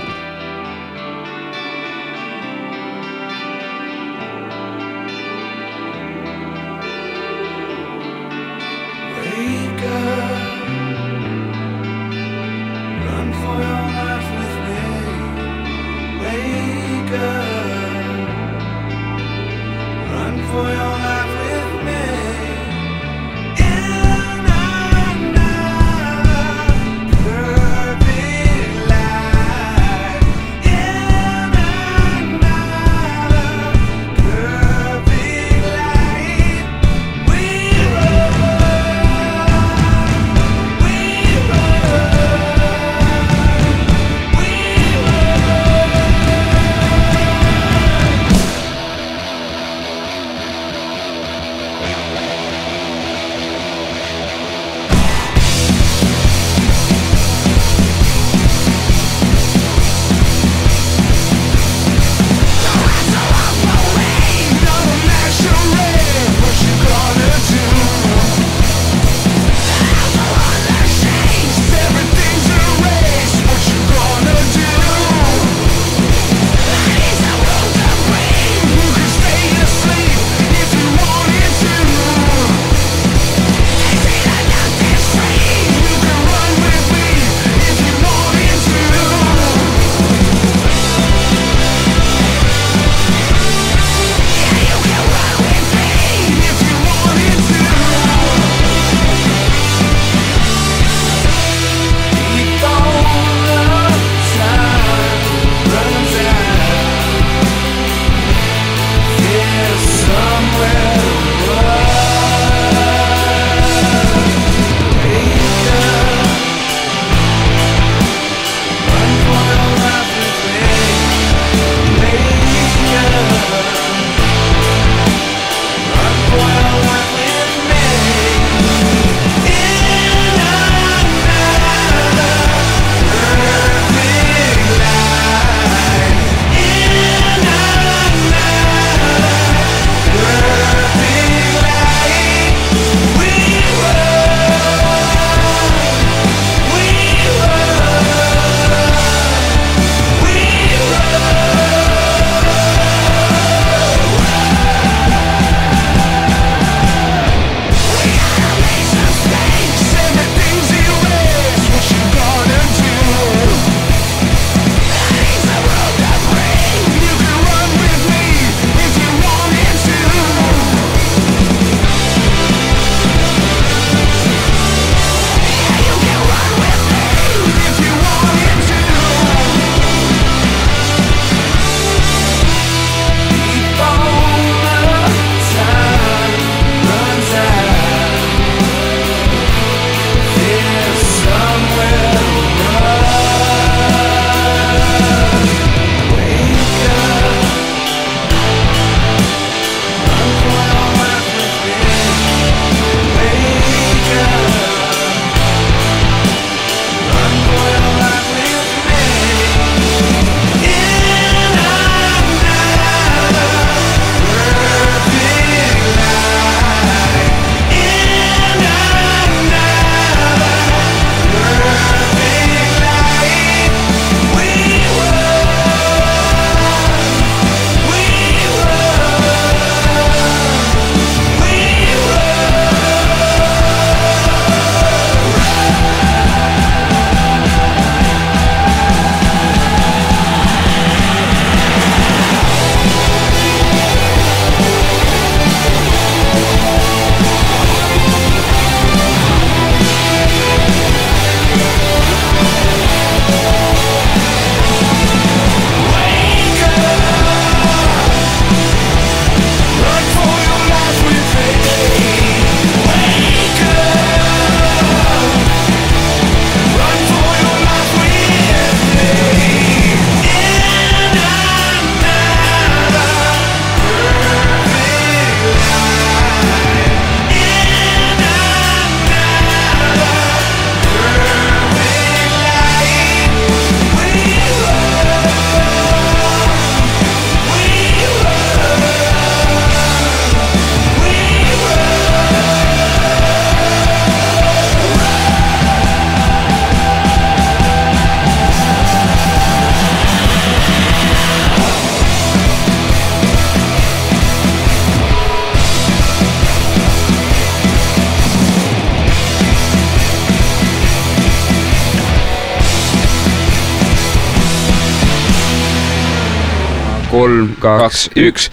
3, 2, 1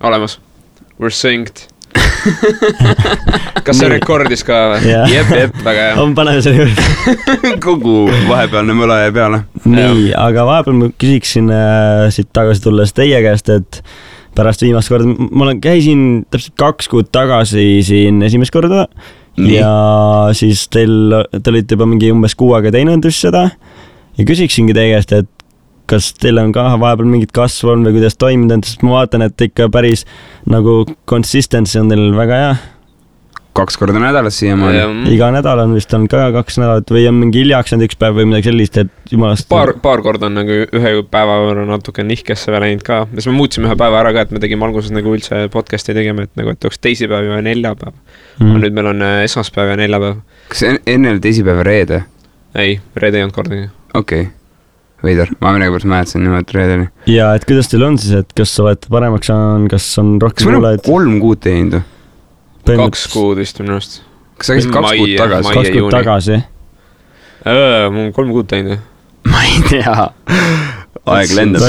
olemas. We're synced. Kas see rekordis ka või? Jep, väga hea. On paneme selle juurde. Kogu vahepealne mõle ja peale. Nii, aga vahepeal ma küsiksin siit tagasi tulles teie käest, et pärast viimast korda, ma käisin täpselt 2 kuud tagasi siin esimest korda ja siis te olite juba mingi umbes 6 aega teinud just seda ja küsiksingi teie käest, et kas teil on ka vahepeal mingit kasvu on või kuidas toiminud, sest ma vaatan, et ikka päris nagu consistency on teil väga hea. 2 korda nädalas siiamaani. Iga nädal on vist on ka 2 nädalat või on mingi hiljaks üks päev või midagi sellist, et jumalast... Paar korda on nagu ühe päeva võrra natuke nihkesse veel läinud ka. Siis me muutsime ühe päeva ära ka, et me tegime alguses nagu üldse podcasti tegema, et nagu et oleks teisipäev ja neljapäev. Nüüd meil on esmaspäev ja neljapäev. Kas enne oli teisipäev reede? Ei, reede ei olnud kordagi. Okei. Veidar, ma mõnepärast määtasin nimelt reedeni. Ja et kuidas teil on siis, et kas olete paremaks on, kas on rohkem kuulaid? Kas meil on 3 kuud teinud? 2 kuud vist minust. Kas sa käisid 2 kuud tagasi? 2 kuud tagasi? Mul on 3 kuud teinud. Ma ei tea. Aeg lendab.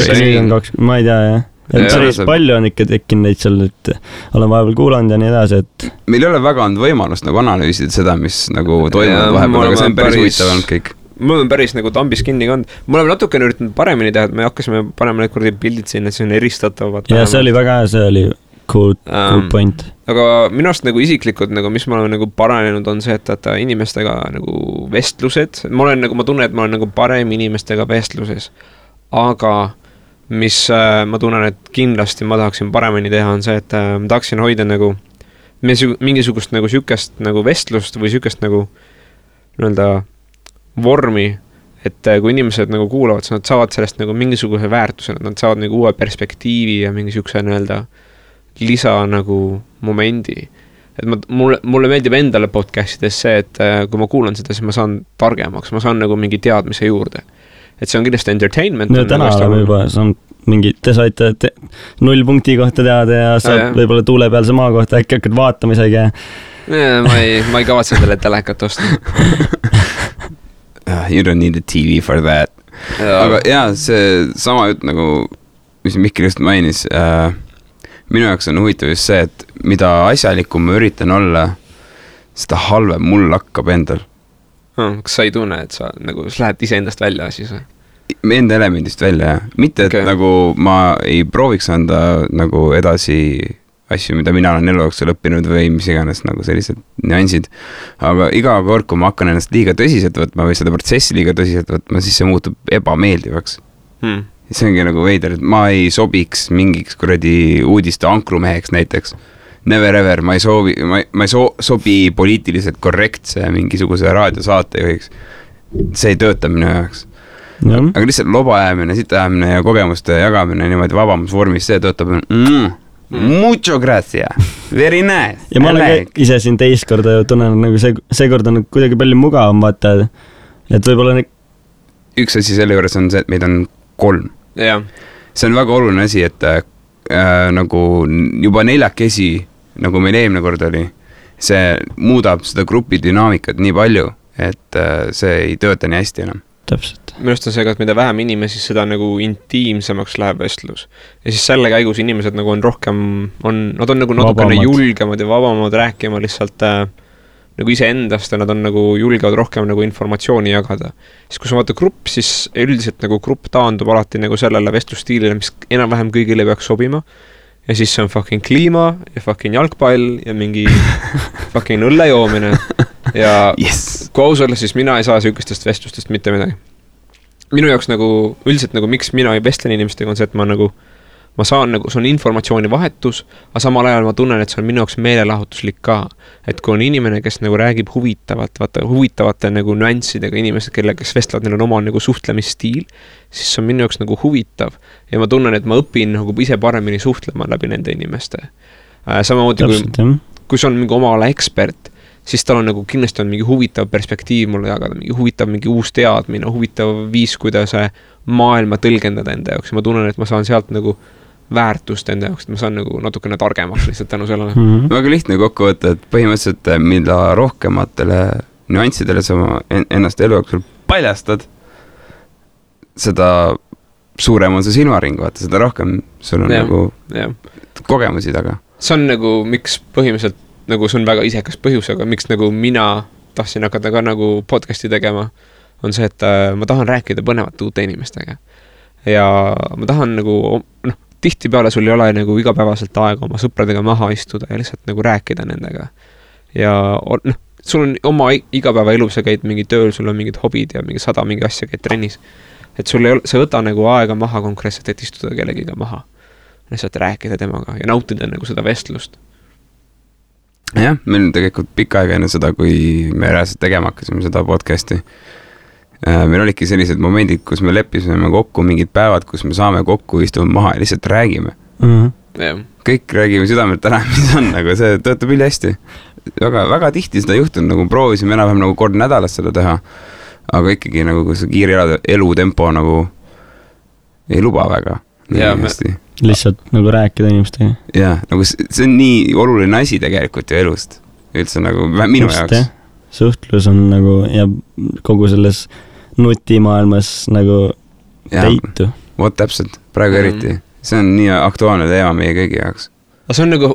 Ma ei tea, jah. Et päris palju on ikka tekkinud neid seal, et olen vahepeal kuulanud ja nii edasi, et... Meil ei ole väga olnud võimalust nagu analüüsida seda, mis nagu toimunud vahepeal, aga see on päris huvitav olnud kõik. Mul on päris nagu tambis kinni kand. Me oleme natukene üritanud paremini teha, et me hakkasime panema need kordi pildid sinna, et see on eristatavad. Ja see oli väga hea, see oli cool point. Aga minu arust nagu isiklikud, nagu, mis ma olen nagu paranenud, on see, et inimestega nagu vestlused. Ma tunnen, et ma olen nagu parem inimestega vestluses. Aga mis ma tunnen, et kindlasti ma tahaksin paremini teha, on see, et ma tahaksin hoida nagu mingisugust nagu sükest nagu vestlust või sükest nagu nii-öelda vormi, et kui inimesed nagu kuulavad, siis nad saavad sellest nagu mingisuguse väärtuse, nad saavad nagu uue perspektiivi ja mingisuguse nii-öelda lisa nagu momendi. Et mulle meeldib endale podcastides see, et kui ma kuulan seda, siis ma saan targemaks, ma saan nagu mingi teadmise juurde. Et see on kindlasti entertainment. No täna oleme juba, see on mingi, te saite 0 punkti kohta teada ja saad võib-olla tuule peal maa kohta, äkki hakkad vaatama isegi. Ma ei kavatse selle telekat osta. You don't need a TV for that. Aga jaa, see sama jutt nagu, mis Mikkel just mainis, minu jaoks on huvitav just see, et mida asjalikum ma üritan olla, seda halvem mul hakkab endal. Kas sa ei tunne, et sa nagu lähed ise endast välja siis? Enda elemendist välja, jah. Mitte, et nagu ma ei prooviks anda nagu edasi asju, mida mina olen elu jooksul õppinud või mis iganes nagu sellised nüansid. Aga iga kord, kui ma hakkan ennast liiga tõsiselt võtma või seda protsessi liiga tõsiselt võtma, siis see muutub ebameeldivaks. See ongi nagu veider, et ma ei sobiks mingiks kuradi uudiste ankrumeheks näiteks. Never ever, ma ei sobi poliitiliselt korrektse mingisuguse raadiosaate juhiks. See ei tööta minu jaoks. Aga lihtsalt loba ajamine, sita ajamine ja kogemuste jagamine niimoodi vabamusvormis, see töötab mucho gracia, very nice. Ja ma olen ise siin teist korda ju tunnen, nagu see kord on kuidagi palju mugavam, vaata, et võib-olla üks asi selle juures on see, et meid on 3. See on väga oluline asi, et nagu juba 4 nagu meil eelmine kord oli, see muudab seda grupi dünaamikat nii palju, et see ei tööta nii hästi enam. Täpselt. Minust on see, et mida vähem inimesi, seda nagu intiimsemaks läheb vestlus. Ja siis selle käigus inimesed nagu on rohkem, nad on nagu natukene julgemad ja vabamad rääkima lihtsalt nagu ise endast ja nad on nagu julgevad rohkem nagu informatsiooni jagada. Siis kui sa vaata grupp, siis üldiselt nagu grupp taandub alati nagu sellele vestlusstiilile, mis enam-vähem kõigile peaks sobima. Ja siis see on fucking kliima ja fucking jalgpall ja mingi fucking õlle joomine. Ja kui aus olla, siis mina ei saa sükestest vestlustest mitte midagi. Minu jaoks nagu, üldiselt nagu miks mina ei vestlen inimestega on see, et ma saan nagu, see on informatsiooni vahetus, aga samal ajal ma tunnen, et see on minu jaoks meelelahutuslik ka. Et kui on inimene, kes nagu räägib huvitavate nagu nüanssidega inimesed, kes vestlevad, neil on oma nagu suhtlemisstiil, siis see on minu jaoks nagu huvitav. Ja ma tunnen, et ma õpin nagu ise paremini suhtlema läbi nende inimeste. Samamoodi kui see on mingi oma ala ekspert, siis tal on nagu kindlasti on mingi huvitav perspektiiv mulle jagada, mingi uus teadmine, huvitav viis, kuidas maailma tõlgendada enda jaoks. Ja ma tunnen, et ma saan sealt nagu väärtust enda jaoks, et ma saan nagu natukene targemaks lihtsalt tänu sellele. Väga lihtne kokku võtta, et põhimõtteliselt mida rohkematele nüanssidele sa ennast elu jooksul paljastad, seda suurem on see silmaring, vaata, seda rohkem sul on nagu kogemusi taga. See on nagu, miks põhimõtteliselt, nagu see on väga isekas põhjus, aga miks nagu mina tahtsin hakata ka nagu podcasti tegema, on see, et ma tahan rääkida põnevate uute inimestega. Ja ma tahan nagu, tihtipeale sul ei ole nagu igapäevaselt aega oma sõpradega maha istuda ja lihtsalt nagu rääkida nendega. Ja sul on oma igapäeva elu, sa käid mingi tööl, sul on mingid hobid ja mingi 100 mingi asja, käid trennis. Et sul ei ole, sa võta nagu aega maha konkreetselt, et istuda kellegiga maha. Lihtsalt rääkida temaga ja nautida nagu seda vestlust. Jah, meil on tegelikult pikka aega enne seda, kui me reaalselt tegema hakkasime seda podcasti. Meil olidki sellised momendid, kus me leppisime kokku mingid päevad, kus me saame kokku istume maha ja lihtsalt räägime. Kõik räägime südamelt ära, mis on, nagu see töötab üli hästi. Väga tihti seda juhtun, nagu proovisime enam-vähem nagu kord nädalas seda teha, aga ikkagi nagu see kiire elutempo nagu ei luba väga. Lihtsalt nagu rääkida inimestega. Jah, nagu see on nii oluline asi tegelikult ju elust. Üldse nagu minu jaoks. Suhtlus on nagu ja kogu selles nutimaailmas nagu teitu. Vot täpselt, praegu eriti. See on nii aktuaalne teema meie kõigi jaoks. See on nagu,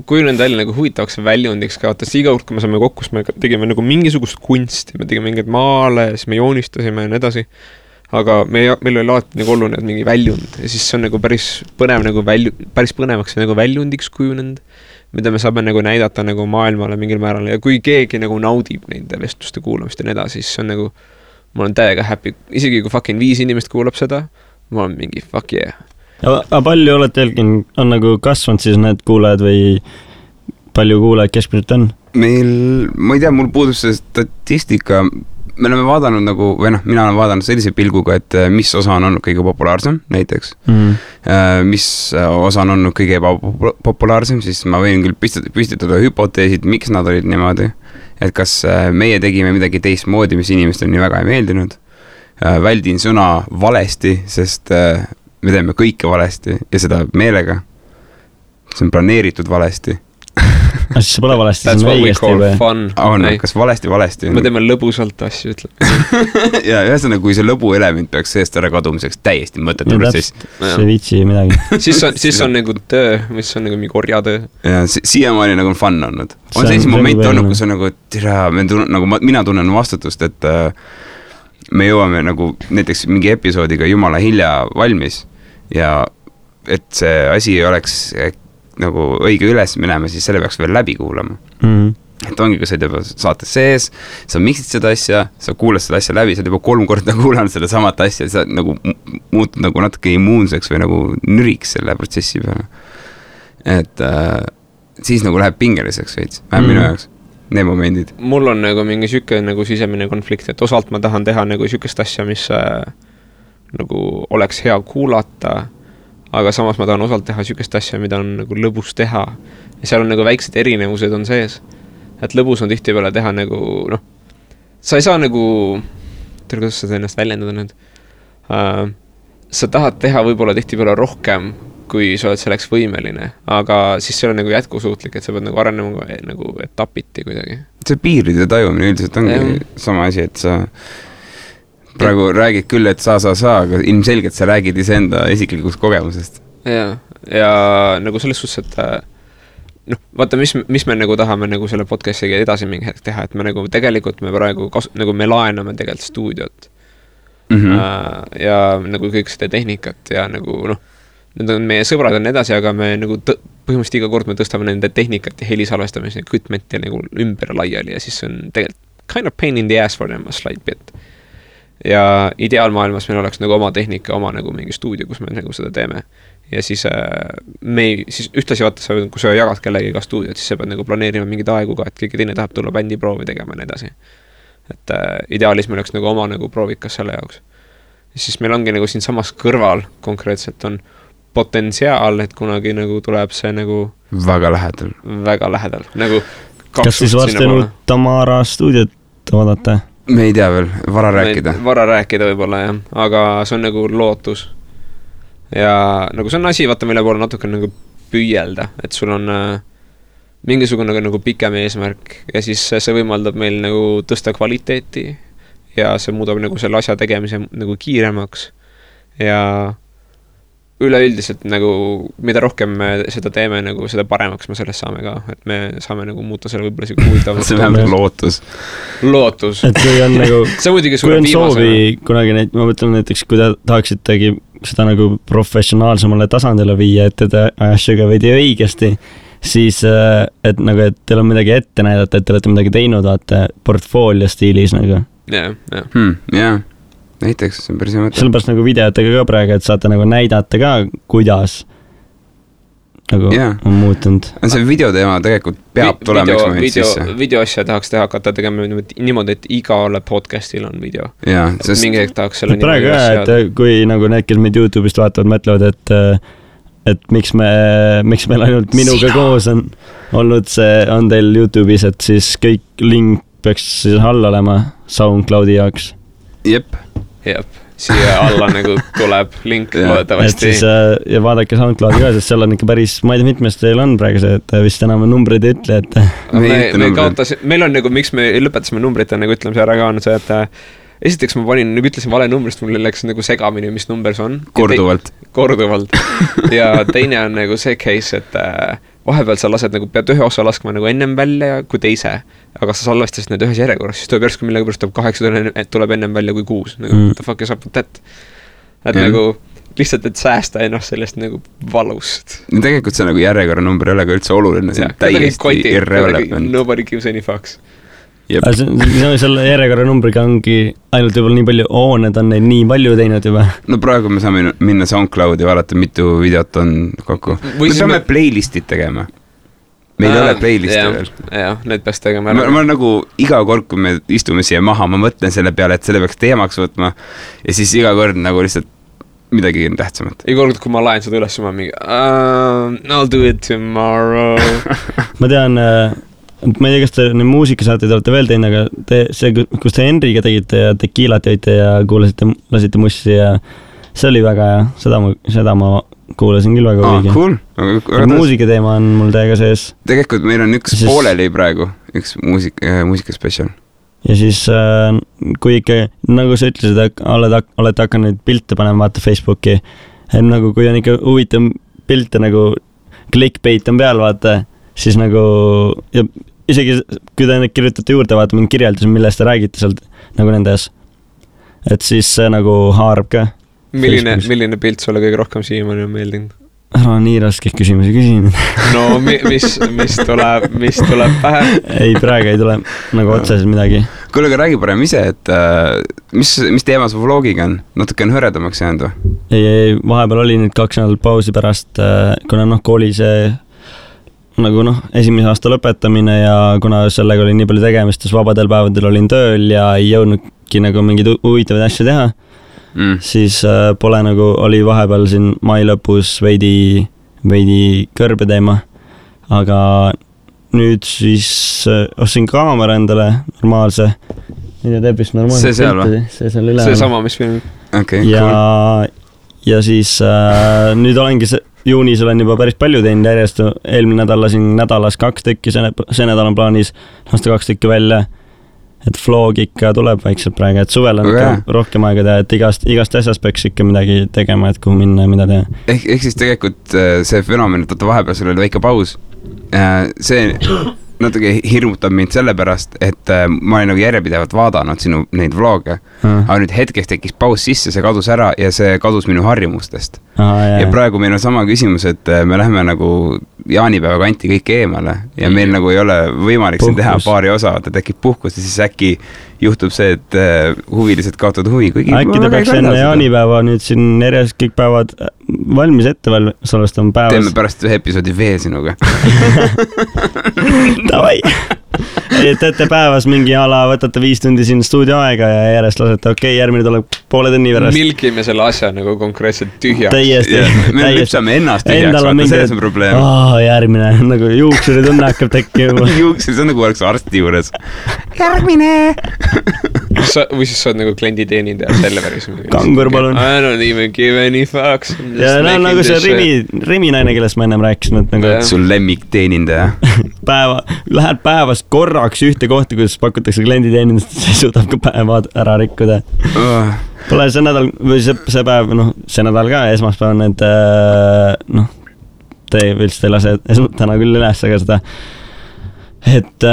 kujunenud välja nagu huvitavaks väljundiks ka, vaata, iga kord, kui me saame kokku, me tegime nagu mingisugust kunsti, me tegime mingeid maale, siis me joonistasime ja nii edasi. Aga meil oli alati nagu oluline mingi väljund ja siis see on nagu päris põnev nagu päris põnevaks nagu väljundiks kujunenud, mida me saame nagu näidata nagu maailmale mingil määral ja kui keegi nagu naudib neid vestluste kuulamist ja nii edasi, siis see on nagu, ma olen täiega happy, isegi kui fucking 5 inimest kuulab seda, ma olen mingi fuck yeah. Aga palju olete jälgin, on nagu kasvanud siis need kuulajad või palju kuulajad keskmiselt on? Meil, ma ei tea, mul puudus see statistika, me oleme vaadanud nagu, või mina olen vaadanud sellise pilguga, et mis osa on olnud kõige populaarsem, näiteks. Mis osa on olnud kõige populaarsem, siis ma võin küll püstitada hüpoteesid, miks nad olid niimoodi. Et kas meie tegime midagi teistmoodi, mis inimestele nii väga ei meeldinud. Väldin sõna valesti, sest me teeme kõike valesti ja seda meelega. See on planeeritud valesti. Siis see pole valesti, see on õigesti või? Kas valesti? Me teeme lõbusalt asju, ütleb. Ja ühesõnaga, kui see lõbu element peaks seest ära kadumiseks täiesti mõttetu protsess. See vitsi midagi. siis on nagu töö, mis on nagu mingi orjatöö. Ja siiamaani nagu on fun olnud. On sellise moment olnud, kus on nagu, mina tunnen vastutust, et me jõuame nagu näiteks mingi episoodiga jumala hilja valmis ja et see asi oleks nagu õige üles minema, siis selle peaks veel läbi kuulama. Et ongi, kui sa juba saates sees, sa miksid seda asja, sa kuulad seda asja läbi, sa oled juba 3 korda kuulanud seda samat asja, sa nagu muutud nagu natuke immuunseks või nagu nüriks selle protsessi peale. Et siis nagu läheb pingeliseks veits, vähem minu jaoks, need momendid. Mul on nagu mingi süke nagu sisemine konflikt, et osalt ma tahan teha nagu sükest asja, mis nagu oleks hea kuulata, aga samas ma tahan osalt teha sükest asja, mida on nagu lõbus teha. Ja seal on nagu väiksed erinevused on sees. Et lõbus on tihtipeale teha nagu, sa ei saa nagu, kuidas sa ennast väljendada nüüd, sa tahad teha võib-olla tihtipeale rohkem, kui sa oled selleks võimeline, aga siis see on nagu jätkusuutlik, et sa pead nagu arenema nagu etapiti kuidagi. See piiride tajumine üldiselt ongi sama asi, et sa praegu räägid küll, et sa, aga ilmselgelt sa räägid iseenda isiklikust kogemusest. Ja nagu selles suhtes, et vaata, mis me nagu tahame nagu selle podcastiga edasi mingi hetk teha, et me nagu tegelikult me praegu nagu me laename tegelikult stuudiot ja nagu kõik seda tehnikat ja nagu need on meie sõbrad on edasi, aga me nagu põhimõtteliselt iga kord me tõstame nende tehnikat ja helisalvestamise ja kütmenti nagu ümber laiali ja siis on tegelikult kind of pain in the ass for them a slight bit. Ja ideaalmaailmas meil oleks nagu oma tehnika, oma nagu mingi stuudio, kus me nagu seda teeme. Ja siis siis ühtlasi vaata, kui sa jagad kellegi ka stuudiot, siis sa pead nagu planeerima mingid aegu ka, et keegi teine tahab tulla bändi proovi tegema ja edasi. Et ideaalis meil oleks nagu oma nagu proovikas selle jaoks. Ja siis meil ongi nagu siin samas kõrval konkreetselt on potentsiaal, et kunagi nagu tuleb see nagu väga lähedal. Nagu kas siis varsti Tamara stuudiot vaadata? Me ei tea veel, vara rääkida võib-olla jah, aga see on nagu lootus. Ja nagu see on asi, vaata meile poole natuke nagu püüelda, et sul on mingisugune nagu pikem eesmärk ja siis see võimaldab meil nagu tõsta kvaliteeti ja see muudab nagu selle asja tegemise nagu kiiremaks ja üleüldiselt nagu, mida rohkem me seda teeme, nagu seda paremaks me sellest saame ka, et me saame nagu muuta selle võib-olla siuke huvitavalt. See on lootus. Et kui on nagu, kui on soovi kunagi neid, ma mõtlen näiteks, kui te tahaksitegi seda nagu professionaalsemale tasandile viia, et te asjaga veidi õigesti, siis et nagu, et teil on midagi ette näidata, et te olete midagi teinud, vaata portfoolio stiilis nagu. Jah. Näiteks, see on päris hea mõte. Sellepärast nagu videotega ka praegu, et saate nagu näidata ka, kuidas nagu on muutunud. See videoteema tegelikult peab tulema üks moment sisse. Videoasja tahaks hakata tegema niimoodi, et igale podcastil on video. Mingi hetk tahaks selle praegu jah, et kui nagu need, kes meid YouTube'ist vaatavad, mõtlevad, et miks meil ainult minuga koos on olnud see, on teil YouTube'is, et siis kõik link peaks siis all olema SoundCloudi jaoks. Jep, siia alla nagu tuleb link loodavasti. Et siis ja vaadake SoundCloudi ka, sest seal on ikka päris, ma ei tea, mitmest teil on praegu see, et vist enam numbreid ei ütle, et meil on nagu, miks me lõpetasime numbrite nagu ütlemise ära ka, on see, et esiteks ma ütlesin vale numbrist, mul läks nagu segamini, mis number see on. Korduvalt. Ja teine on nagu see case, et vahepeal sa lased nagu, pead ühe osa laskma nagu ennem välja kui teise, aga sa salvestasid need ühes järjekorras, siis tuleb järsku millega pärast 8 tuleb ennem välja kui 6. Nagu, what the fuck is up with that? Et nagu lihtsalt, et säästa ennast sellest nagu valust. Tegelikult see nagu järjekorra number ei ole ka üldse oluline, see on täiesti irrelevant. Nobody gives any fucks. Selle järjekorra numbriga ongi ainult võib-olla nii palju, need on neid nii palju teinud juba. No praegu me saame minna SoundCloudi ja vaadata, mitu videot on kokku. Me peame playlistid tegema. Meil ei ole playlisti veel. Jah, need peaks tegema. Ma nagu iga kord, kui me istume siia maha, ma mõtlen selle peale, et selle peaks teemaks võtma ja siis iga kord nagu lihtsalt midagi tähtsamat. Iga kord, kui ma laen seda üles, ma mingi I'll do it tomorrow. Ma tean, ma ei tea, kas te neid muusikasaateid olete veel teinud, aga see, kus te Henriga tegite ja tekiilat jõite ja lasite mussi ja see oli väga hea, seda ma kuulasin küll väga huviga. Cool. Muusikateema on mul täiega sees. Tegelikult meil on üks pooleli praegu, üks muusikaspecial. Ja siis, kui ikka, nagu sa ütlesid, olete hakanud pilte panema, vaata Facebooki, nagu kui on ikka huvitav pilte, nagu clickbait on peal, vaata, siis nagu, ja isegi kui te kirjutate juurde, vaata mingi kirjeldus, millest te räägite sealt nagu nendes, et siis see nagu haarab ka. Milline pilt sulle kõige rohkem siiamaani on meeldinud? Ära nii raske küsimusi küsin. No mis tuleb pähe? Ei, praegu ei tule nagu otseselt midagi. Kuule, aga räägi parem ise, et mis teema su vlogiga on? Natuke on hõredamaks jäänud või? Ei, vahepeal oli nüüd 2 nädalat pausi pärast, kuna kooli see nagu esimese aasta lõpetamine ja kuna sellega oli nii palju tegemist, siis vabadel päevadel olin tööl ja ei jõudnudki nagu mingeid huvitavaid asju teha. Siis pole nagu, oli vahepeal siin mai lõpus veidi kõrbe teema, aga nüüd siis ostsin kaamera endale normaalse, mida teeb vist normaalse see seal või? See seal üle. See sama, mis film. Okay, ja siis nüüd olengi juunis olen juba päris palju teinud järjest, eelmine nädal lasin nädalas 2 tükki, see nädal on plaanis lasta 2 tükki välja. Et vlog ikka tuleb vaikselt praegu, et suvel on rohkem aega teha, et igast asjast peaks ikka midagi tegema, et kuhu minna ja mida teha. Ehk siis tegelikult see fenomen, et vahepeal sul oli väike paus, see natuke hirmutab mind sellepärast, et ma olin nagu järjepidevalt vaadanud sinu neid vloge, aga nüüd hetkeks tekkis paus sisse, see kadus ära ja see kadus minu harjumustest. Ja praegu meil on sama küsimus, et me läheme nagu jaanipäeva kanti kõik eemale ja meil nagu ei ole võimalik siin teha paari osa, ta tekib puhkus ja siis äkki juhtub see, et huvilised kaotavad huvi. Äkki ta peaks enne jaanipäeva nüüd siin järjest kõik päevad valmis ette salvestama päevas. Teeme pärast ühe episoodi veel sinuga. Davai! Teete päevas mingi ala, võtate 5 tundi siin stuudio aega ja järjest lasete, okei, järgmine tuleb poole tunni pärast. Milkime selle asja nagu konkreetselt tühjaks. Täiesti. Me lüpsame ennast tühjaks, vaata, selles on probleem. Järgmine, nagu juuksuri tunne hakkab tekkima. Juuksuri, see on nagu oleks arsti juures. Järgmine! või siis sa oled nagu klienditeenindaja Selveris. Kangur, palun. I don't even give any fucks. Ja nagu see Rimi naine, kellest ma ennem rääkisin, et nagu sul lemmikteenindaja. Lähed päevas korraks ühte kohta, kus pakutakse klienditeenindust, see suudab ka päeva ära rikkuda. Pole see nädal, või see päev, see nädal ka, esmaspäev on need, te ei lase täna küll üles, aga seda, et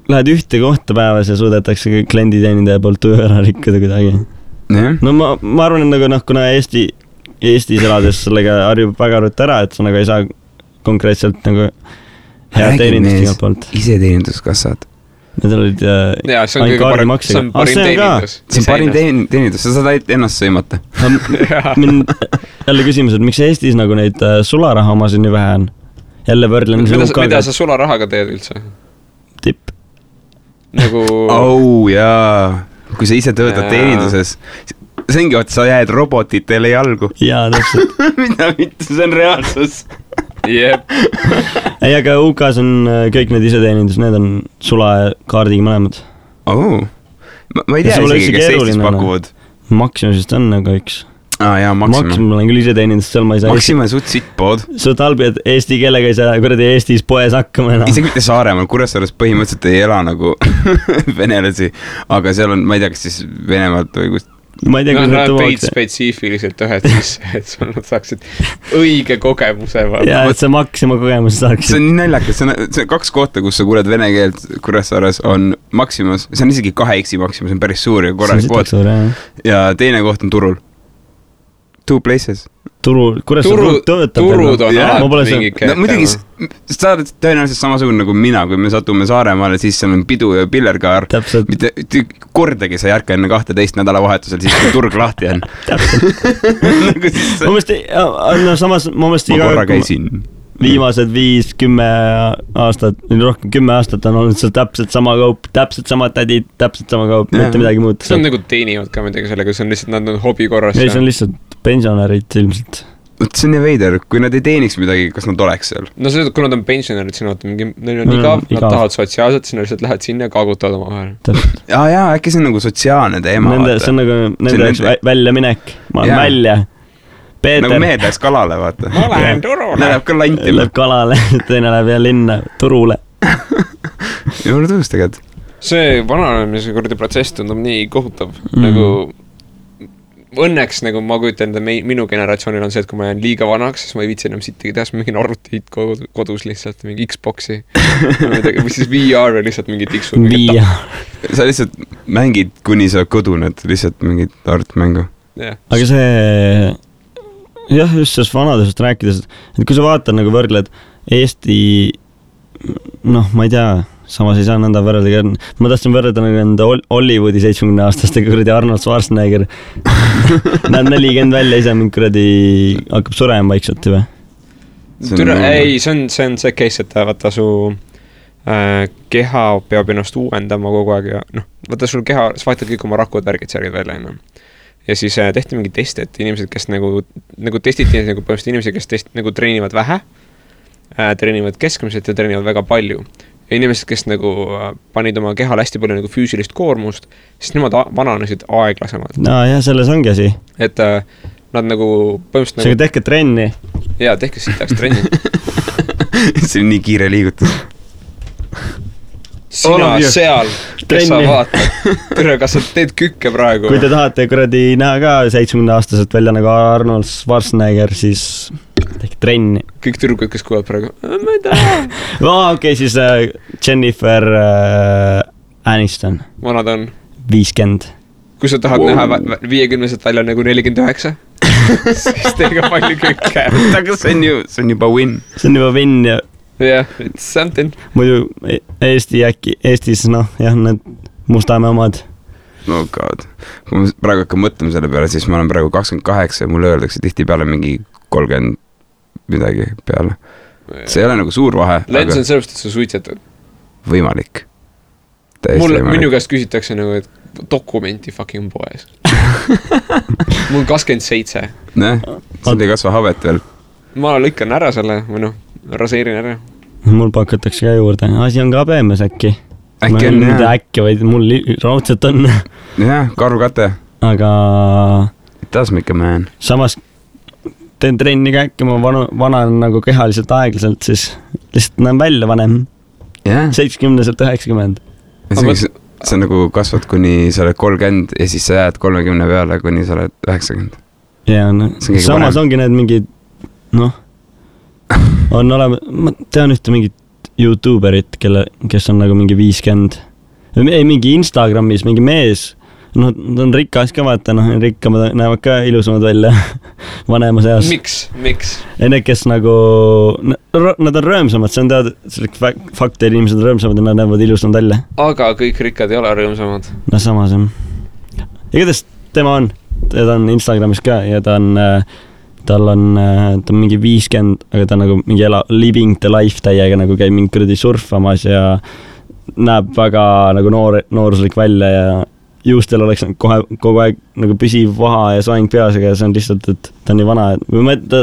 lähed ühte kohta päevas ja suudetakse klienditeenindaja poolt töö ära rikkuda kuidagi. No ma arvan, et nagu kuna Eestis elades sellega harjub väga rut ära, et sa nagu ei saa konkreetselt nagu head teenindust igalt poolt. Iseteeninduskassad. Need olid see on parim teenindus. See on parim teenindus, sa saad ennast sõimata. Mind jälle küsimus, et miks Eestis nagu neid sularaha omasid nii vähe on? Jälle võrdlen. Mida sa sularahaga teed üldse? Tipp. Nagu... jaa. Kui sa ise töötad teeninduses, see ongi, et sa jääd robotitele jalgu. Jaa, täpselt. Mida mitte, see on reaalsus. Jep. Ei, aga UK-s on kõik need iseteenindus, need on sulakaardiga mõlemad. Ma ei tea isegi, kes Eestis pakuvad. Maximusist on nagu üks. Jaa, Maxima olen küll iseteenindust, seal ma ei saa. Maxima on suht sittpood. Su talbijad eesti keelega ei saa kuradi Eestis poes hakkama enam. Isegi mitte Saaremaal, Kuressaares põhimõtteliselt ei ela nagu venelasi, aga seal on, ma ei tea, kas siis Venemaalt või kust. Ma ei tea, kus nad peid spetsiifiliselt ühed sisse, et sul nad saaksid õige kogemuse. Jaa, et sa Maxima kogemuse saaksid. See on nii naljakas, see on 2 kohta, kus sa kuuled vene keelt Kuressaares on Maximas, see on isegi 2X Maximas, see on päris suur ja korralik pood. Ja teine koht on Turul. 2 places. Kuressaare töötab. Turud on alati mingi kätte. Muidugi, sa oled tõenäoliselt samasugune nagu mina, kui me satume Saaremaale, siis seal on pidu ja pillerkaar. Täpselt. Mitte kordagi sa ei ärka enne 12 nädalavahetusel, siis kui turg lahti on. Täpselt. Samas, ma mõist iga korra käisin. Viimased 5-10 aastat, rohkem 10 aastat on olnud seal täpselt sama kaup, täpselt sama tädid, täpselt sama kaup, mitte midagi muud. See on nagu teenivad ka midagi sellega, see on lihtsalt, nad on hobi korras. Ei, see on lihtsalt pensionärid ilmselt. See on nii veider, kui nad ei teeniks midagi, kas nad oleks seal? No see, kui nad on pensionärid, siis neil on igav, nad tahavad sotsiaalselt, siis nad lihtsalt lähed sinna ja kaagutavad oma vahel. Jaa, äkki see on nagu sotsiaalne teema. See on nagu nende välja minek, ma olen välja. Peeter. Nagu mehed läheks kalale, vaata. Ma lähen turule. Läheb ka lantima. Läheb kalale, teine läheb ja linna turule. Juurde tõus teged. See vananemise kurdi protsess tundub nii kohutav. Nagu õnneks nagu ma kujutan, minu generatsioonil on see, et kui ma jään liiga vanaks, siis ma ei viitsi enam sittagi teha, siis ma mingin arvutit kodus lihtsalt, mingi Xboxi. Või siis VR lihtsalt mingi tiksu. Sa lihtsalt mängid, kuni sa koduned, lihtsalt mingit arvutmängu. Aga see... Jah, just sellest vanadusest rääkides, et kui sa vaatad nagu võrdled Eesti, ma ei tea, samas ei saa nõnda võrrelda, ma tahtsin võrrelda nagu enda Hollywoodi 70-aastastega kuradi Arnold Schwarzenegger. Näeb 40 välja, ise mind kuradi hakkab surema vaikselt juba. Ei, see on see case, et vaata su keha peab ennast uuendama kogu aeg ja vaata sul keha, sa vaatad kõik oma rakud värgid särgid välja enam. Ja siis tehti mingi test, et inimesed, kes nagu testiti nagu põhimõtteliselt inimesed, kes nagu treenivad vähe, treenivad keskmiselt ja treenivad väga palju. Ja inimesed, kes nagu panid oma kehal hästi palju nagu füüsilist koormust, siis nemad vananesid aeglasemalt. Jah, selles ongi asi. Et nad nagu põhimõtteliselt nagu... tehke trenni. Jaa, tehke sitaks trenni. See on nii kiire liigutus. Sina seal, kes sa vaatad. Tere, kas sa teed kükke praegu? Kui te tahate kuradi näha ka 70-aastaselt välja nagu Arnold Schwarzenegger, siis tehke trenni. Kõik tüdrukud, kes kuulavad praegu. Ma ei taha. Okei, siis Jennifer Aniston. Vanad on? 50. Kui sa tahad näha 50-set välja nagu 49, siis teega palju kükke. Aga see on juba win. See on juba win ja... Yeah, it's something. Muidu Eestis, need Mustamäe omad. No god. Kui ma praegu hakkan mõtlema selle peale, siis ma olen praegu 28 ja mulle öeldakse tihti peale mingi 30 midagi peale. See ei ole nagu suur vahe. Lens on sellest, et sa suitsetad. Võimalik. Minu käest küsitakse nagu, et dokumenti fucking poes. Mul 27. Sind ei kasva habet veel. Ma lõikan ära selle, või raseerin ära. Mul pakutakse ka juurde. Asi on ka peemes äkki. äkki on, jah. Äkki, vaid mul raudselt on. Jah, karukate. Aga... It does make a man. Samas teen trenni ka äkki, ma vanan nagu kehaliselt aeglaselt, siis lihtsalt näen välja vanem. 70-90. See on nagu kasvad kuni sa oled 30 ja siis sa jääd 30 peale, kuni sa oled 90. Ja, no. Samas ongi need mingid, on olema, ma tean ühte mingit YouTuberit, kes on nagu mingi 50. Ei, mingi Instagramis, mingi mees. Ta on rikas ka, vaata, rikkamad näevad ka ilusamad välja vanema seas. Miks? Need, kes nagu, nad on rõõmsamad, see on teada, fakt, et inimesed on rõõmsamad ja nad näevad ilusamad välja. Aga kõik rikkad ei ole rõõmsamad. No samas on. Igatahes tema on Instagramis ka ja tal on mingi 50, aga ta on nagu mingi living the life täiega, nagu käib mingi kuradi surfamas ja näeb väga nagu nooruslik välja ja juustel oleks kogu aeg nagu püsiv vaha ja soeng peas, aga see on lihtsalt, et ta on nii vana. Kui ta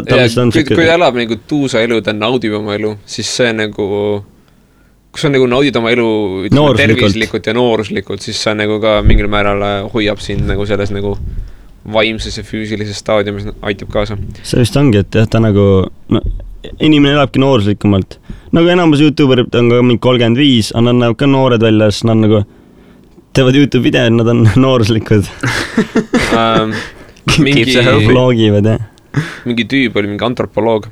elab nagu tuusa elu, ta naudib oma elu, siis see nagu, kui sa nagu naudid oma elu tervislikult ja nooruslikult, siis sa nagu ka mingil määral hoiab sind nagu selles nagu vaimses ja füüsilises staadiumis aitab kaasa. See vist ongi, et jah, ta nagu, inimene elabki nooruslikumalt. Nagu enamus YouTuberid on ka mingi 35, aga nad näevad ka noored välja, siis nad nagu teevad YouTube videod, nad on nooruslikud. Vlogivad, jah. Mingi tüüb oli mingi antropoloog.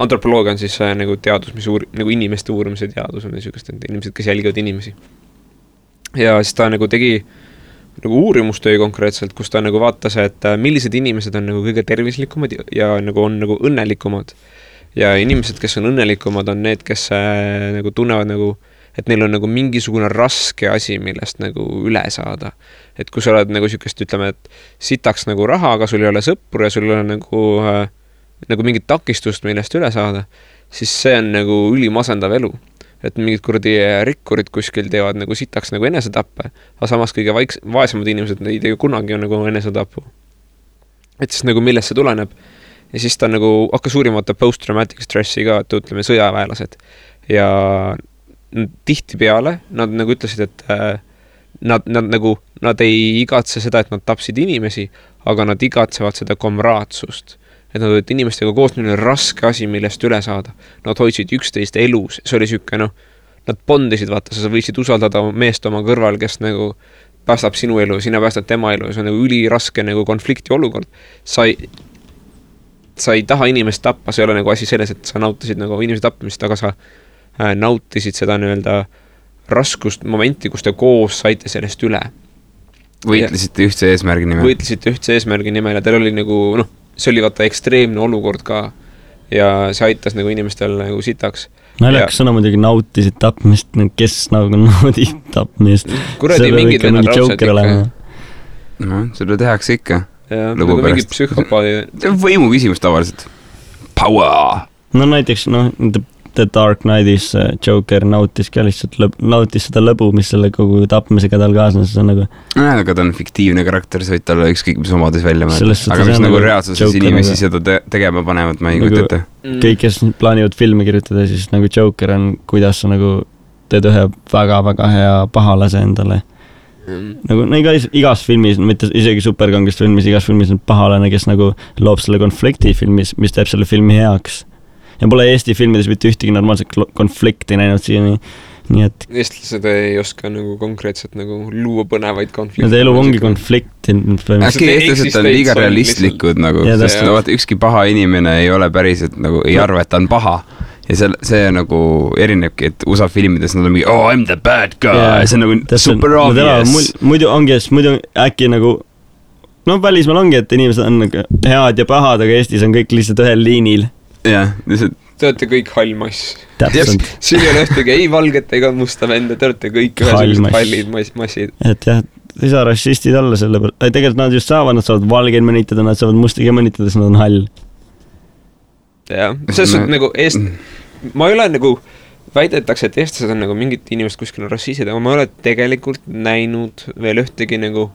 Antropoloog on siis nagu teadus, mis nagu inimeste uurimise teadus on niisugust, et inimesed, kes jälgivad inimesi. Ja siis ta nagu tegi nagu uurimustöö konkreetselt, kus ta nagu vaatas, et millised inimesed on nagu kõige tervislikumad ja nagu on nagu õnnelikumad. Ja inimesed, kes on õnnelikumad, on need, kes nagu tunnevad nagu et neil on nagu mingisugune raske asi, millest nagu üle saada. Et kui sa oled nagu sükest, ütleme, et sitaks nagu raha, aga sul ei ole sõppur ja sul ei ole nagu mingit takistust, millest üle saada, siis see on nagu ülimasendav elu. Et mingid kuradi rikkurid kuskil teevad nagu sitaks nagu enesetappe, aga samas kõige vaesemad inimesed ei tee kunagi on nagu enesetapu. Et siis nagu millest see tuleneb. Ja siis ta nagu hakkas uurimata post-traumatic stressi ka, et ütleme sõjaväelased. Ja tihti peale, nad nagu ütlesid, et nad ei igatse seda, et nad tapsid inimesi, aga nad igatsevad seda komraatsust. Et nad olid inimestega koos neil raske asi, millest üle saada. Nad hoidsid üksteist elus, see oli süüke, nad bondisid, vaata, sa võisid usaldada meest oma kõrval, kes nagu päästab sinu elu, sina päästad tema elu, see on nagu üliraske nagu konflikti olukord. Sa ei taha inimest tappa, see ei ole nagu asi selles, et sa nautisid nagu inimese tappamist, aga sa nautisid seda nii-öelda raskust momenti, kus te koos saite sellest üle. Võitlesite ühtse eesmärgi nimel. Võitlesite ühtse eesmärgi nimel ja teil oli nagu, see oli vaata ekstreemne olukord ka ja see aitas nagu inimestel nagu sitaks. Naljakas sõna muidugi nautisid tapmist, kes nagu naudib tapmist. Kuradi mingid vennad raudselt ikka. Seda tehakse ikka. Ja, nagu mingid psühhopaadi. See on võimu küsimus tavaliselt. Power! No näiteks, The Dark Knightis Joker nautis ka lihtsalt nautis seda lõbu, mis selle kogu tapmisega tal kaasnes, see on nagu... Aga ta on fiktiivne karakter, see võid talle ükskõik mis omadus välja mõelda. Aga mis nagu reaalsuses inimesi seda tegema panevad, ma ei kujuta ette. Kõik, kes plaanivad filme kirjutada, siis nagu Joker on, kuidas sa nagu teed ühe väga-väga hea pahalase endale. Nagu igas filmis, mitte isegi superkangest filmis, igas filmis on pahalane, kes nagu loob selle konflikti filmis, mis teeb selle filmi heaks. Ja pole Eesti filmides mitte ühtegi normaalset konflikti näinud siiani, nii et... Eestlased ei oska nagu konkreetselt nagu luua põnevaid konflikte. Nende elu ongi konflikti. Äkki eestlased on liiga realistlikud nagu, sest ükski paha inimene ei ole päriselt nagu, ei arva, et ta on paha. Ja see nagu erinebki, et USA filmides nad on mingi, oh, I'm the bad guy, see on nagu super obvious. Muidu ongi, muidu äkki nagu, välismaal ongi, et inimesed on nagu head ja pahad, aga Eestis on kõik lihtsalt ühel liinil. Jah, te olete kõik hall mass. Siin ei ole ühtegi ei valget ega musta venda, te olete kõik ühesugused hallid massid. Et jah, ei saa rassistid olla selle peal. Tegelikult nad just saavad valgeid mõnitada, nad saavad mustiga mõnitada, siis nad on hall. Jah, selles on nagu ma ei ole nagu väidetakse, et eestlased on nagu mingid inimesed kuskil rassised, aga ma ei ole tegelikult näinud veel ühtegi nagu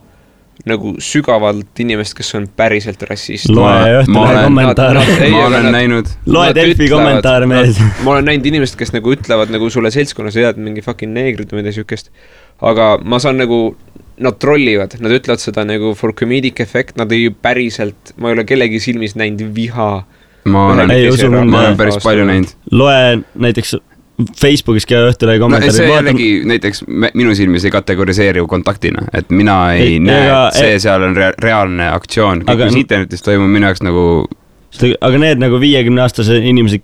nagu sügavalt inimest, kes on päriselt rassist. Loe Õhtulehe kommentaare. Ma olen näinud. Loe Delfi kommentaare mees. Ma olen näinud inimest, kes nagu ütlevad nagu sulle seltskonnas head mingi fucking neegrid või mida sükest. Aga ma saan nagu, nad trollivad, nad ütlevad seda nagu for comedic effect, nad ei päriselt, ma ei ole kellegi silmis näinud viha. Ma olen päris palju näinud. Loe näiteks Facebookis ka Õhtulehe kommentaari. See jällegi näiteks minu silmis ei kategoriseeri kontaktina, et mina ei näe, seal on reaalne aktsioon. Kõik mis internetis toimub minu jaoks nagu... Aga need nagu 50-aastase inimesed,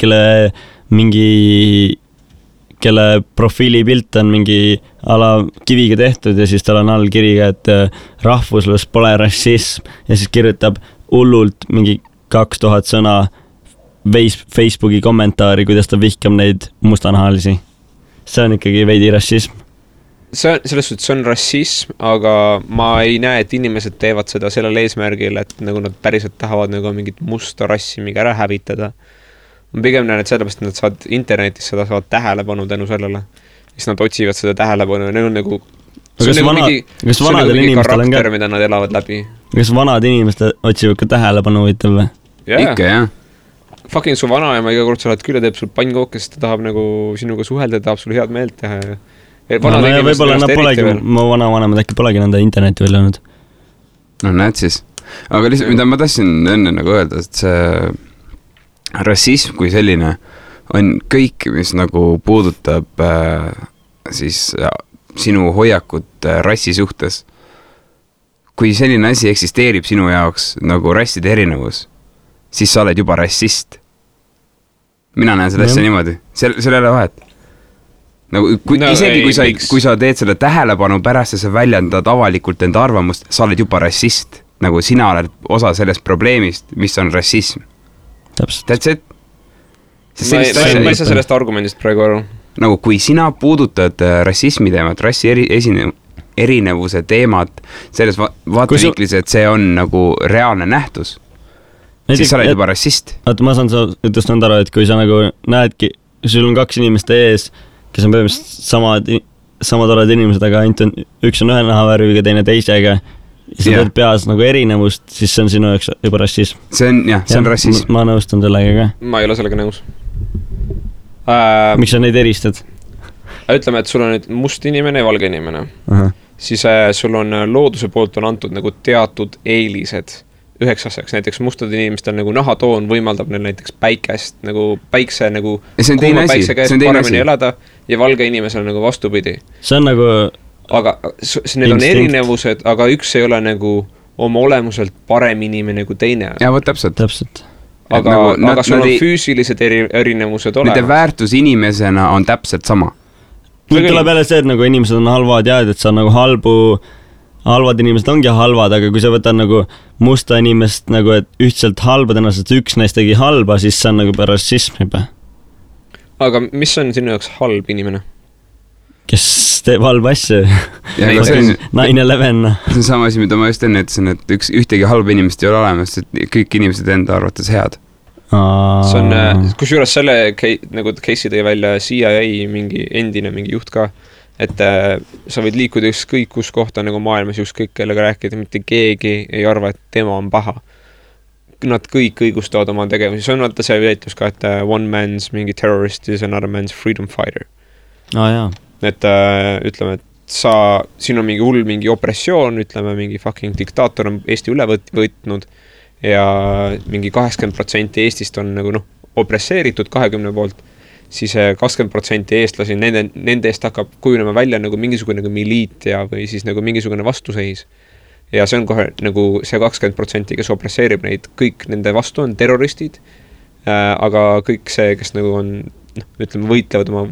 kelle profiilipilt on mingi ala kiviga tehtud ja siis tal on all kiriga, et rahvuslus pole rassism ja siis kirjutab hullult mingi 2000 sõna Facebooki kommentaari, kuidas ta vihkab neid mustanahalisi. See on ikkagi veidi rassism. Selles suhtes see on rassism, aga ma ei näe, et inimesed teevad seda sellel eesmärgil, et nagu nad päriselt tahavad nagu mingit musta rassi mingi ära hävitada. Ma pigem näen, et sellepärast, et nad saavad internetis seda saavad tähelepanu tänu sellele. Siis nad otsivad seda tähelepanu ja neil on nagu... Kas vanadel inimestel on ka... mida nad elavad läbi. Kas vanad inimesed otsivad ka tähelepanu võitel või? Ikka, jah. Fucking su vanaema iga kord sa oled küll ja teeb sul pannkooke, sest ta tahab nagu sinuga suhelda ja tahab sul head meelt teha. Võib-olla nad polegi, mu vanavanemad äkki polegi nende interneti välja olnud. No näed siis. Aga lihtsalt, mida ma tahtsin enne nagu öelda, et see rassism kui selline on kõik, mis nagu puudutab siis sinu hoiakut rassi suhtes. Kui selline asi eksisteerib sinu jaoks nagu rasside erinevus, siis sa oled juba rassist. Mina näen seda asja niimoodi. Seal ei ole vahet. Nagu, kui sa teed selle tähelepanu pärast ja sa väljendad avalikult enda arvamust, sa oled juba rassist. Nagu sina oled osa sellest probleemist, mis on rassism. Täpselt. That's it. Ma ei saa sellest argumendist praegu aru. Nagu kui sina puudutad rassismi teemat, rassi erinevuse teemat selles vaatevinklis, et see on nagu reaalne nähtus, siis sa oled juba rassist. Ma saan ütles nõnda aru, et kui sa nagu näedki, sul on 2 inimest ees, kes on põhimõtteliselt samad oled inimesed, aga üks on ühe nahavärviga, teine teisega, ja sa teed peas nagu erinevust, siis see on sinu jaoks juba rassism. See on rassism. Ma nõustun sellega ka. Ma ei ole sellega nõus. Miks sa neid eristad? Ütleme, et sul on nüüd must inimene ja valge inimene. Siis sul on looduse poolt on antud nagu teatud eelised üheks asjaks, näiteks mustad inimestel nagu nahatoon võimaldab neil näiteks päikest, nagu päikse nagu kuuma päikse käes paremini elada ja valge inimesel nagu vastupidi. See on nagu aga need on erinevused, aga üks ei ole nagu oma olemuselt parem inimene kui teine. Ja võt täpselt. Aga sul on füüsilised erinevused olema. Nende väärtus inimesena on täpselt sama. Nüüd tuleb jälle see, et nagu inimesed on halvad ja et sa on nagu halvad inimesed ongi halvad, aga kui sa võtad nagu musta inimest nagu, et ühtselt halbad ennast, et üks neist tegi halba, siis see on nagu rassism juba. Aga mis on sinu jaoks halb inimene? Kes teeb halba asju? 9/11. See on sama asi, mida ma just enne ütlesin, et ühtegi halba inimest ei ole olemas, et kõik inimesed enda arvates head. See on, kusjuures selle nagu case'i tõi välja CIA mingi endine mingi juht ka, et sa võid liikuda ükskõik kus kohta nagu maailmas ükskõik kellega rääkida, mitte keegi ei arva, et tema on paha. Nad kõik õigustavad oma tegevusi. See on vaata see väitlus ka, et one man's mingi terrorist is another man's freedom fighter. Jaa. Et ütleme, et siin on mingi hull mingi opressioon, ütleme mingi fucking diktaator on Eesti üle võtnud ja mingi 80% Eestist on nagu opresseeritud 20 poolt, siis 20% eestlasi, nende eest hakkab kujunema välja nagu mingisugune nagu miliit ja või siis nagu mingisugune vastuseis. Ja see on kohe nagu see 20%, kes opresseerib neid, kõik nende vastu on terroristid, aga kõik see, kes nagu on, ütleme, võitlevad oma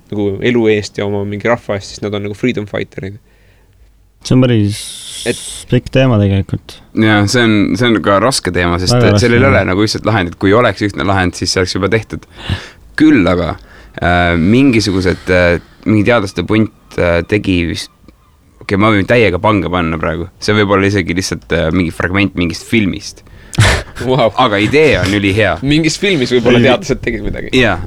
nagu elu eest ja oma mingi rahva eest, siis nad on nagu freedom fighterid. See on päris pikk teema tegelikult. Ja see on ka raske teema, sest sellel ei ole nagu ühtselt lahend, et kui oleks ühtne lahend, siis see oleks juba tehtud. Küll aga mingisugused, mingi teadlaste punt tegi vist, ma võin täiega pange panna praegu, see võib olla isegi lihtsalt mingi fragment mingist filmist, Wow. aga idee on ülihea. Mingis filmis võib-olla teadlased tegid midagi. Jaa,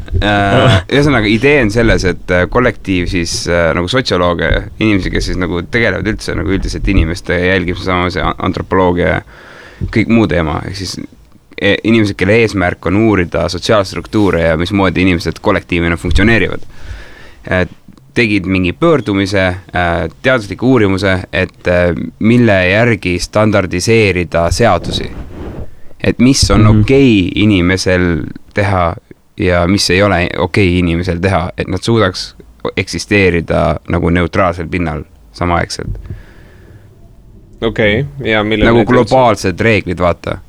ühesõnaga idee on selles, et kollektiiv siis nagu sotsioloogia, inimesi, kes siis nagu tegelevad üldse nagu üldiselt inimeste jälgimise samas ja antropoloogia ja kõik muu teema, ehk siis inimesed, kelle eesmärk on uurida sotsiaalstruktuure ja mismoodi inimesed kollektiivina funktsioneerivad. Tegid mingi pöördumise, teadusliku uurimuse, et mille järgi standardiseerida seadusi. Et mis on okei inimesel teha ja mis ei ole okei inimesel teha, et nad suudaks eksisteerida nagu neutraalsel pinnal samaaegselt. Okei, ja mille nagu globaalsed reeglid, vaata.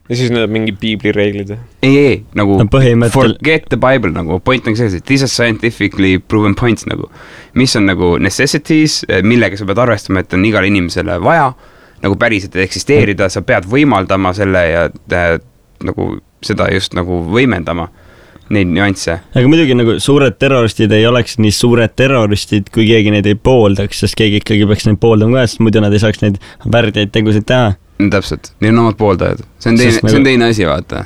Ja siis need on mingi piibli reeglid? Ei, nagu põhimõttel... forget the Bible, nagu point on selles, et these are scientifically proven points, nagu mis on nagu necessities, millega sa pead arvestama, et on igal inimesele vaja, nagu päriselt eksisteerida, sa pead võimaldama selle ja nagu seda just nagu võimendama, neid nüansse. Aga muidugi nagu suured terroristid ei oleks nii suured terroristid, kui keegi neid ei pooldaks, sest keegi ikkagi peaks neid pooldama ka, sest muidu nad ei saaks neid väärdeid tegusid teha. Täpselt, neil on omad pooldajad. See on teine asi, vaata.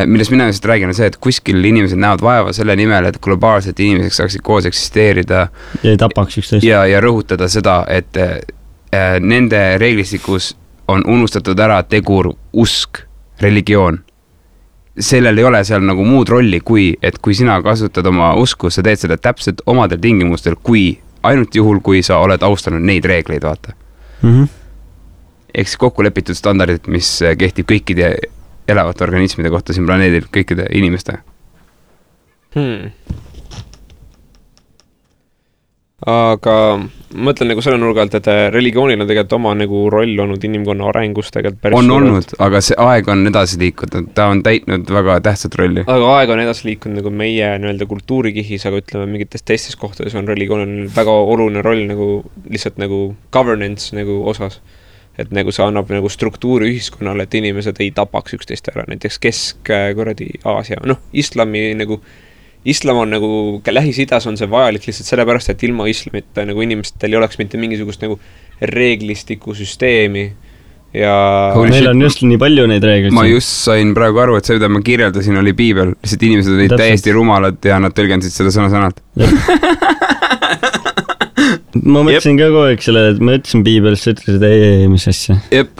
Millest mina just räägin on see, et kuskil inimesed näevad vaeva selle nimel, et globaalselt inimesed saaksid koos eksisteerida. Ja ei tapaks üksteist. Ja rõhutada seda, et nende reeglistikus on unustatud ära tegur usk, religioon. Sellel ei ole seal nagu muud rolli, et kui sina kasutad oma usku, sa teed seda täpselt omadel tingimustel, ainult juhul, kui sa oled austanud neid reegleid, vaata. Ehk siis kokku lepitud standardid, mis kehtib kõikide elavate organismide kohta siin planeedil, kõikide inimeste. Aga mõtlen nagu selle nurga alt, et religioonil on tegelikult oma nagu roll olnud inimkonna arengus tegelikult päris on olnud, aga see aeg on edasi liikunud, ta on täitnud väga tähtsat rolli. Aga aeg on edasi liikunud nagu meie nii-öelda kultuurikihis, aga ütleme mingites teistes kohtades on religioonil väga oluline roll nagu lihtsalt nagu governance nagu osas. Et nagu see annab nagu struktuuri ühiskonnale, et inimesed ei tapaks üksteist ära, näiteks Kesk-Aasia, islam on nagu, Lähis-Idas on see vajalik lihtsalt sellepärast, et ilma islamita nagu inimestel ei oleks mitte mingisugust nagu reeglistiku süsteemi ja... Meil on just nii palju neid reegleid. Ma just sain praegu aru, et see, mida ma kirjeldasin, oli piibel, lihtsalt inimesed olid täiesti rumalad ja nad tõlgendasid seda sõna-sõnalt. Ma mõtlesin ka kogu aeg selle, et ma ütlesin piibelist, sa ütlesid ei, mis asja. Jep,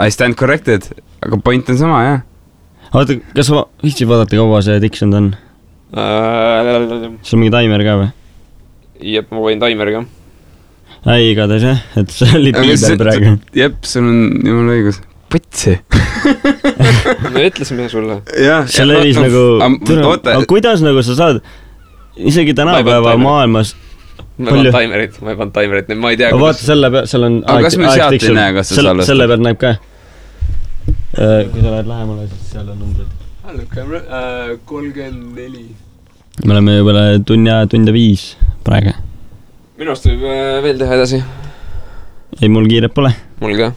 I stand corrected, aga point on sama, jah. Oota, kas ma viitsid vaadata, kaua see tiksunud on? Sul mingi taimer ka või? Jep, ma võin taimer ka. Ei, igatahes jah, et see oli piibel praegu. Jep, sul on jumal õigus. Põtsi. Me ütlesime sulle. See levis nagu... Aga kuidas nagu sa saad isegi tänapäeva maailmas... Ma ei pannud taimerit, ma ei tea... Vaata selle peal, seal on... Aga kas me sealt ei näe, kas sa salvestad? Selle peal näeb ka. Kui sa lähed lähemale, siis seal on numbrid. 34. Me oleme juba tund ja 5 praegu. Minu arust võib veel teha edasi. Ei, mul kiiret pole. Mul ka.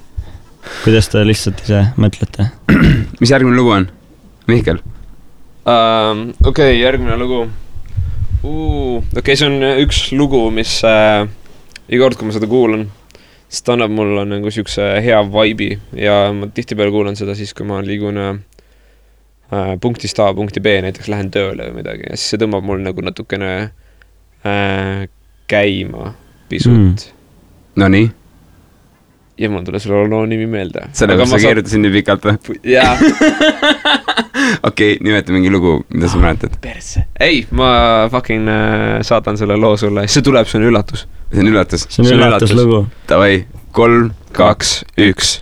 Kuidas te lihtsalt ise mõtlete? Mis järgmine lugu on? Mihkel? Okei, järgmine lugu. Okei, see on üks lugu, mis iga kord, kui ma seda kuulan, siis ta annab mulle nagu siukse hea vibe'i ja ma tihtipeale kuulan seda siis, kui ma liigun punktist A, punkti B, näiteks lähen tööle või midagi ja siis see tõmbab mul nagu natukene käima pisut. No nii? Ja mul tule selle loo nimi meelde. Sellega sa keerutasin nii pikalt või? Jaa. Okei, nimeta mingi lugu, mida sa mäletad? Perse. Ei, ma fucking saatan selle loo sulle. See tuleb, see on üllatus. See on üllatus? See on üllatus lugu. Davai, 3, 2, 1.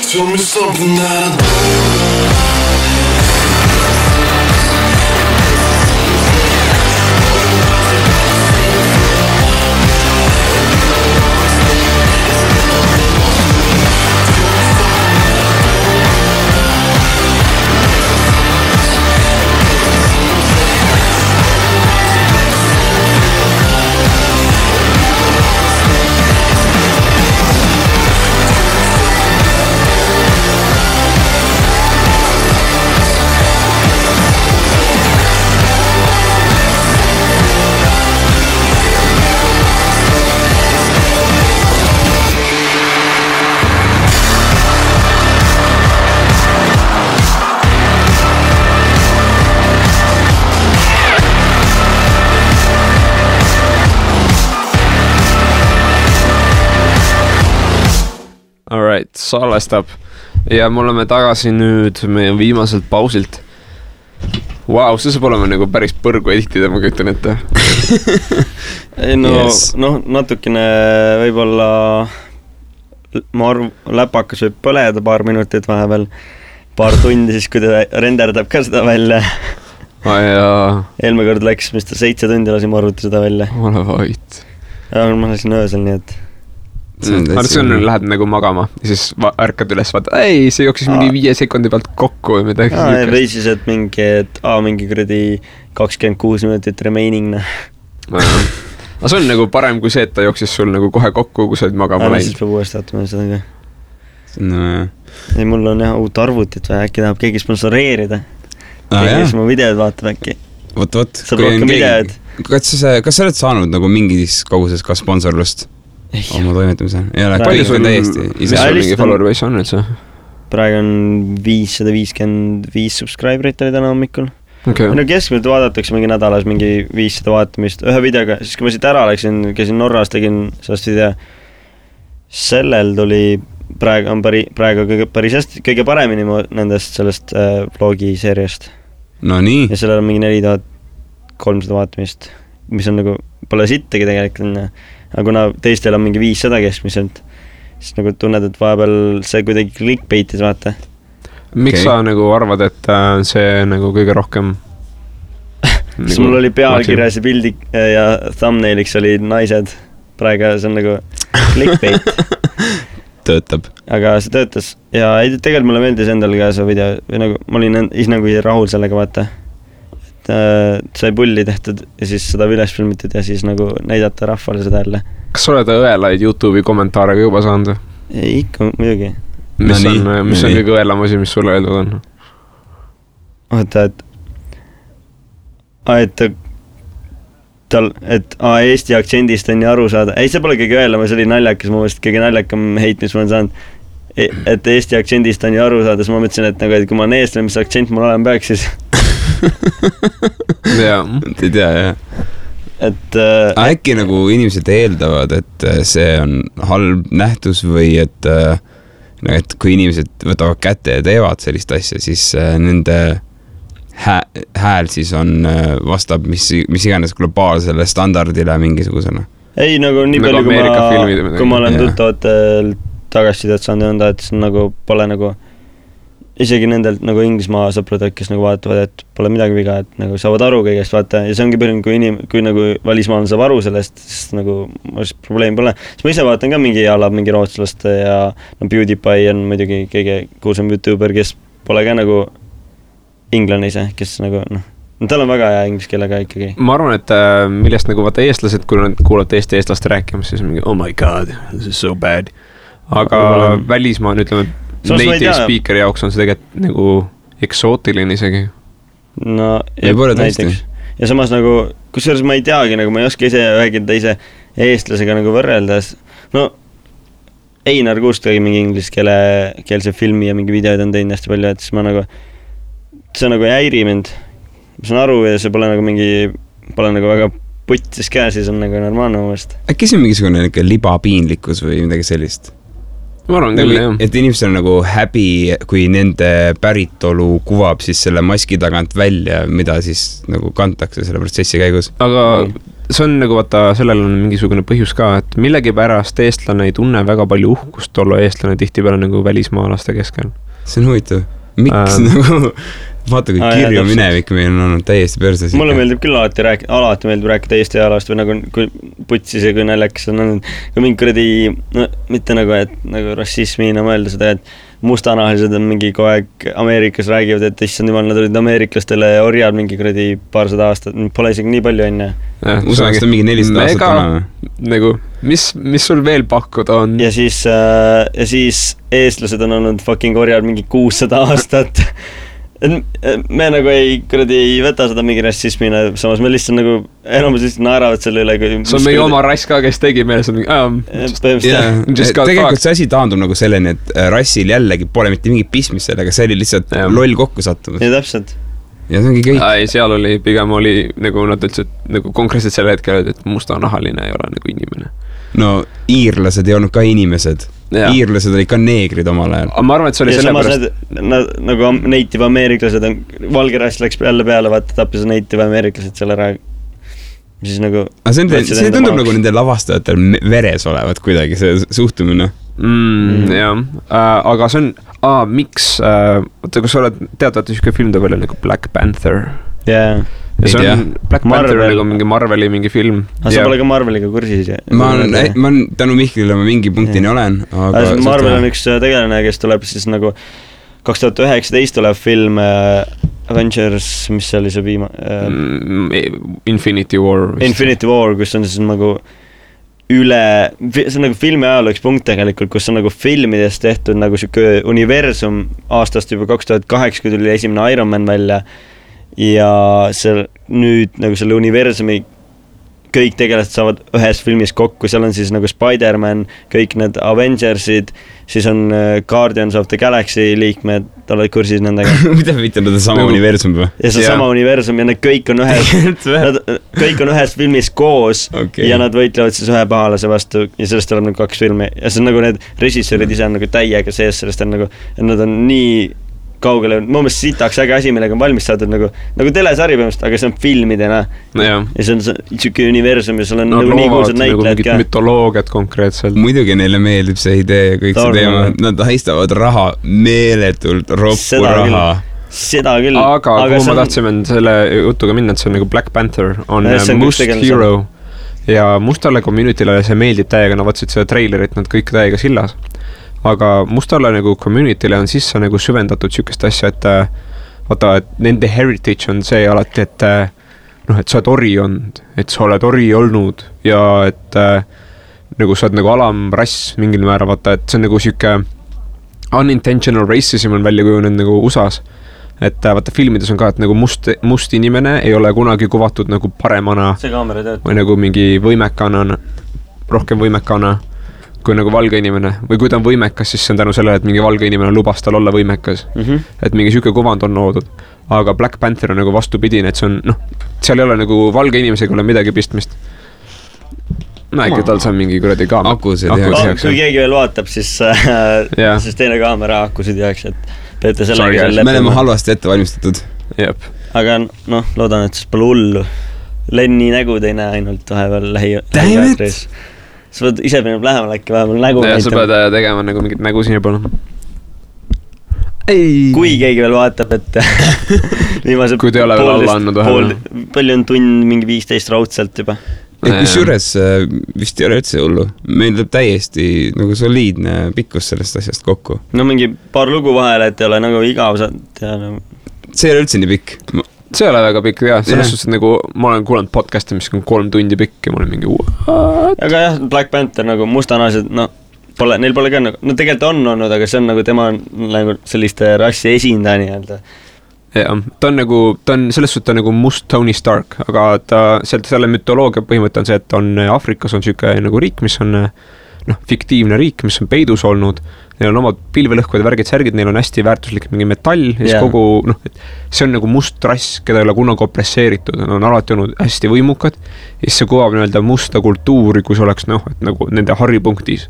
Tell me something that I Alright, salvestab ja me oleme tagasi nüüd meie viimaselt pausilt. Vau, see saab olema nagu päris põrgu editida, ma kütan ette. Natukene võib-olla ma arvan, läpakas võib põleda paar minutit vahepeal, paar tundi siis, kui ta renderdab ka seda välja. Eelmine kord läks, mis ta 7 tundi lasin arvuti seda välja. Ole vait. Ja ma lasin öösel, nii et see on, lähed nagu magama ja siis ärkad üles, vaata, ei, see jooksis mingi 5 sekundi pealt kokku või midagi. Või siis, et mingi kuradi 26 minutit remaining. Aga see on nagu parem kui see, et ta jooksis sul nagu kohe kokku, kui sa olid magama läinud. Siis peab uuesti vaatama seda ka. Ei, mul on jah uut arvutit või äkki tahab keegi sponsoreerida. Kes mu videod vaatab äkki. Võt. Saab rohkem videod. Kas sa oled saanud nagu mingis koguses ka sponsorlust? Oma toimetamise. Palju sul täiesti? Mis sul mingi follower base on üldse? Praegu on 555 subscriberit oli täna hommikul. No keskmiselt vaadatakse mingi nädalas mingi 500 vaatamist ühe videoga, siis kui ma siit ära läksin, käisin Norras, tegin sellest video. Sellel tuli praegu päris hästi, kõige paremini nendest sellest vlogi seeriast. No nii. Ja sellel on mingi 4300 vaatamist, mis on nagu, pole sittagi tegelikult. Aga kuna teistel on mingi 500 keskmiselt, siis nagu tunned, et vahepeal see kuidagi clickbaitis, vaata. Miks sa nagu arvad, et see nagu kõige rohkem siis mul oli pealkirjas ja pildi ja thumbnailiks oli naised. Praegu see on nagu clickbait. Töötab. Aga see töötas. Ja tegelikult mulle meeldis endal ka see video. Või nagu, ma olin ise nagu rahul sellega, vaata. Sai pulli tehtud ja siis seda üles filmitud ja siis nagu näidata rahvale seda jälle. Kas sa oled õelaid YouTube'i kommentaare ka juba saanud? Ikka, muidugi. Mis on kõige õelam asi, mis sulle öeldud on? Oota, et Eesti aktsendist on nii aru saada. Ei, see pole kõige õelam, see oli naljakas, ma mõtlesin, kõige naljakam heit, mis ma olen saanud. Et Eesti aktsendist on nii aru saada, siis ma mõtlesin, et kui ma olen eestlane, mis aktsent mul olema peaks siis. Jaa, ei tea, jah. Äkki nagu inimesed eeldavad, et see on halb nähtus või et kui inimesed võtavad kätte ja teevad sellist asja, siis nende hääl siis on vastab mis iganes globaalsele standardile mingisugusena. Ei, nagu nii palju, kui ma olen tuttavatel tagasisidet saanud ja nõnda, et see nagu pole nagu isegi nendelt nagu Inglismaa sõprudelt, kes nagu vaatavad, et pole midagi viga, et nagu saavad aru kõigest, vaata, ja see ongi põhjus, kui nagu välismaal saab aru sellest, siis nagu probleem pole. Siis ma ise vaatan ka mingi rootslaste ja PewDiePie on muidugi kõige kuulsam YouTuber, kes pole ka nagu inglane ise, kes nagu tal on väga hea inglise keelega ikkagi. Ma arvan, et millest nagu vaata eestlased, kui nad kuulavad eestlaste rääkimas, siis mingi, oh my god, this is so bad. Aga välismaa on, ütleme, native speakeri jaoks on see tegelikult nagu eksootiline isegi. No, näiteks. Ja samas nagu, kusjuures ma ei teagi, nagu ma ei oska ise ühegi teise eestlasega nagu võrreldes. No, Einar Kuust tegi mingi ingliskeelse filmi ja mingi videod on teinud hästi palju, et siis ma nagu, see nagu ei häiri mind. Ma saan aru ja see pole nagu väga puttis käes, siis on nagu normaalne mõist. Äkki see on mingisugune libapiinlikkus või midagi sellist? ma arvan küll, jah. Et inimestel on nagu häbi, kui nende päritolu kuvab siis selle maski tagant välja, mida siis nagu kantakse selle protsessi käigus. Aga see on nagu, vaata, sellel on mingisugune põhjus ka, et millegipärast eestlane ei tunne väga palju uhkust olla eestlane tihtipeale nagu välismaalaste keskel. See on huvitav. Miks nagu, vaata kui kirju minevik meil on olnud täiesti perses. Mulle meeldib küll alati meeldib rääkida Eesti ajalast või nagu kui putsis ja kui näljakas on olnud. Kui mingi kuradi, no mitte nagu, et nagu rassismina mõelda seda, et mustanahalised on mingi kogu aeg Ameerikas räägivad, et issand jumal, nad olid ameeriklastele orjad mingi kuradi paarsada aastat, pole isegi nii palju enne. USA-st on mingi 400 aastat vana. Nagu, mis sul veel pakkuda on? Ja siis eestlased on olnud fucking orjad mingi 600 aastat. Me nagu ei võta seda mingi rassismina, samas me lihtsalt nagu enamus lihtsalt naeravad selle üle. See on meie oma rass ka, kes tegi meile tegelikult see asi taandub nagu selleni, et rassil jällegi pole mitte mingi pismis sellega, see oli lihtsalt loll kokku sattumus. Ja täpselt. Ja see ongi kõik. Seal oli, pigem oli nagu nad ütlesid, nagu konkreetselt selle hetkel, et mustanahaline ei ole nagu inimene. No iirlased ei olnud ka inimesed. Iirlased olid ka neegrid omal ajal. Ma arvan, et see oli sellepärast. Nagu native ameeriklased, valge rass läks jälle peale, vaata tappis native ameeriklased selle ära. Siis nagu... See tundub nagu nende lavastajatel veres olevat kuidagi see suhtumine. Jah, aga see on... miks... Oota, kus sa oled teadvalt üsike film ta välja nagu Black Panther? Jaa. Ja see on Black Panther nagu mingi Marveli mingi film. Sa pole ka Marveliga kursis? Ma tänu Mihklile ma mingi punktini olen. Marvel on üks tegelane, kes tuleb siis nagu 2019 tuleb film Avengers, mis oli see Infinity War. Infinity War, kus on siis nagu see on nagu filmi ajaloo üks punkt tegelikult, kus on nagu filmidest tehtud nagu siuke universum aastast juba 2008, kui tuli esimene Iron Man välja. Ja nüüd nagu selle universumi kõik tegelased saavad ühes filmis kokku, seal on siis nagu Spider-Man, kõik need Avengersid, siis on Guardians of the Galaxy liikmed, oled kursis nendega. Mida mitte nad on sama universum või? Ja see on sama universum ja need kõik on ühes filmis koos ja nad võitlevad siis ühe pahalase vastu ja sellest tuleb nagu 2 filmi ja see on nagu need režissöörid ise on nagu täiega sees, sellest on nagu, et nad on nii kaugele, mu meelest sitaks äge asi, millega on valmis saadud nagu telesari põhimõtteliselt, aga see on filmidena. Ja see on siuke universum ja seal on nagu nii kuulsad näitlejad ka. Mütoloogiat konkreetselt. Muidugi neile meeldib see idee ja kõik see teema. Nad haistavad raha meeletult, roppu raha. Seda küll. Aga kuhu ma tahtsime selle jutuga minna, et see on nagu Black Panther, on Must Hero ja mustale community'le see meeldib täiega, nad vaatasid seda treilerit, nad kõik täiega sillas. Aga mustale nagu community'le on sisse nagu süvendatud sükest asja, et vaata, et nende heritage on see alati, et et sa oled ori olnud, et sa oled ori olnud ja et nagu sa oled nagu alamrass mingil määral, vaata, et see on nagu süke unintentional racism on välja kujunenud nagu USAs. Et vaata filmides on ka, et nagu must inimene ei ole kunagi kuvatud nagu paremana või nagu mingi võimekana, rohkem võimekana kui nagu valge inimene või kui ta on võimekas, siis see on tänu sellele, et mingi valge inimene lubas tal olla võimekas. Et mingi süke kuvand on loodud. Aga Black Panther on nagu vastupidine, et see on, seal ei ole nagu valge inimesega ole midagi pistmist. Äkki tal saab mingi kuradi kaamera. Akusid, kui keegi veel vaatab, siis teine kaamera akusid jääks, et peete sellega me oleme halvasti ette valmistatud. Aga loodan, et siis pole hullu. Lenni nägu ei näe ainult vahepeal lähiväetris. Sa pead ise peab lähemal äkki vahepeal nägu näitama. Sa pead tegema nagu mingit nägu sinna poole. Kui keegi veel vaatab, et viimase kui te ole veel alla andnud vahel. Palju on tund mingi 15 raudselt juba. Kus juures vist ei ole üldse hullu. Meil tuleb täiesti nagu soliidne pikkus sellest asjast kokku. No mingi paar lugu vahele, et ei ole nagu igav. See ei ole üldse nii pikk. See ei ole väga pikk, jah. Selles suhtes, et nagu ma olen kuulanud podcasti, mis on 3 tundi pikk ja ma olen mingi Aga jah, Black Panther nagu mustanahalised, neil pole ka nagu, tegelikult on olnud, aga see on nagu tema nagu selliste rassi esindaja nii-öelda. Jah, ta on selles suhtes nagu must Tony Stark, aga selle mütoloogia põhimõte on see, et on Afrikas on süke nagu riik, mis on fiktiivne riik, mis on peidus olnud. Neil on omad pilvelõhkud ja värgid särgid, neil on hästi väärtuslik mingi metall ja siis kogu, see on nagu must rass, keda ei ole kunagi opresseeritud, nad on alati olnud hästi võimukad ja siis see kuvab nii-öelda musta kultuuri, kus oleks et nagu nende haripunktis.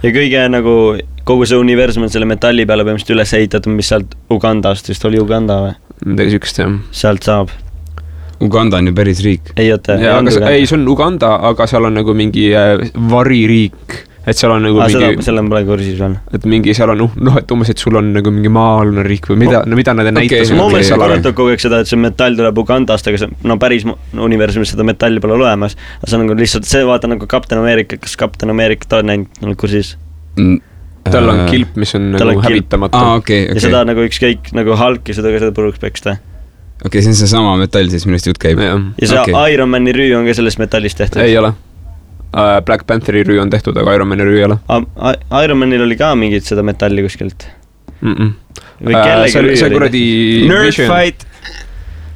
Ja kõige nagu kogu see universum on selle metalli peale põhimõtteliselt üles ehitatud, mis sealt Ugandast, vist oli Uganda või? Midagi sükest, jah. Sealt saab. Uganda on ju päris riik. Ei, oota. Ei, see on Uganda, aga seal on nagu mingi variriik. Et seal on nagu mingi... Selle on praegu kursis veel. Et mingi seal on, et umbes, et sul on nagu mingi maalune riik või mida nad näitas. Ma mõtlesin korratab kogu aeg seda, et see metall tuleb Ugandast, aga see, päris universumis seda metalli pole olemas. Aga see on nagu lihtsalt, see vaata nagu Captain America, kas Captain America ta on näinud kursis? Tal on kilp, mis on nagu hävitamatu. Ja seda nagu ükskõik nagu Hulk ja seda puruks peksta. See on see sama metall siis, millest jutt käib. Ja see Iron Mani rüü on ka sellest metallist tehtud. Ei ole. Black Pantheri rüü on tehtud, aga Iron Mani rüü ei ole. Iron Manil oli ka mingit seda metalli kuskilt. Või kellegi rüü oli. See kuradi...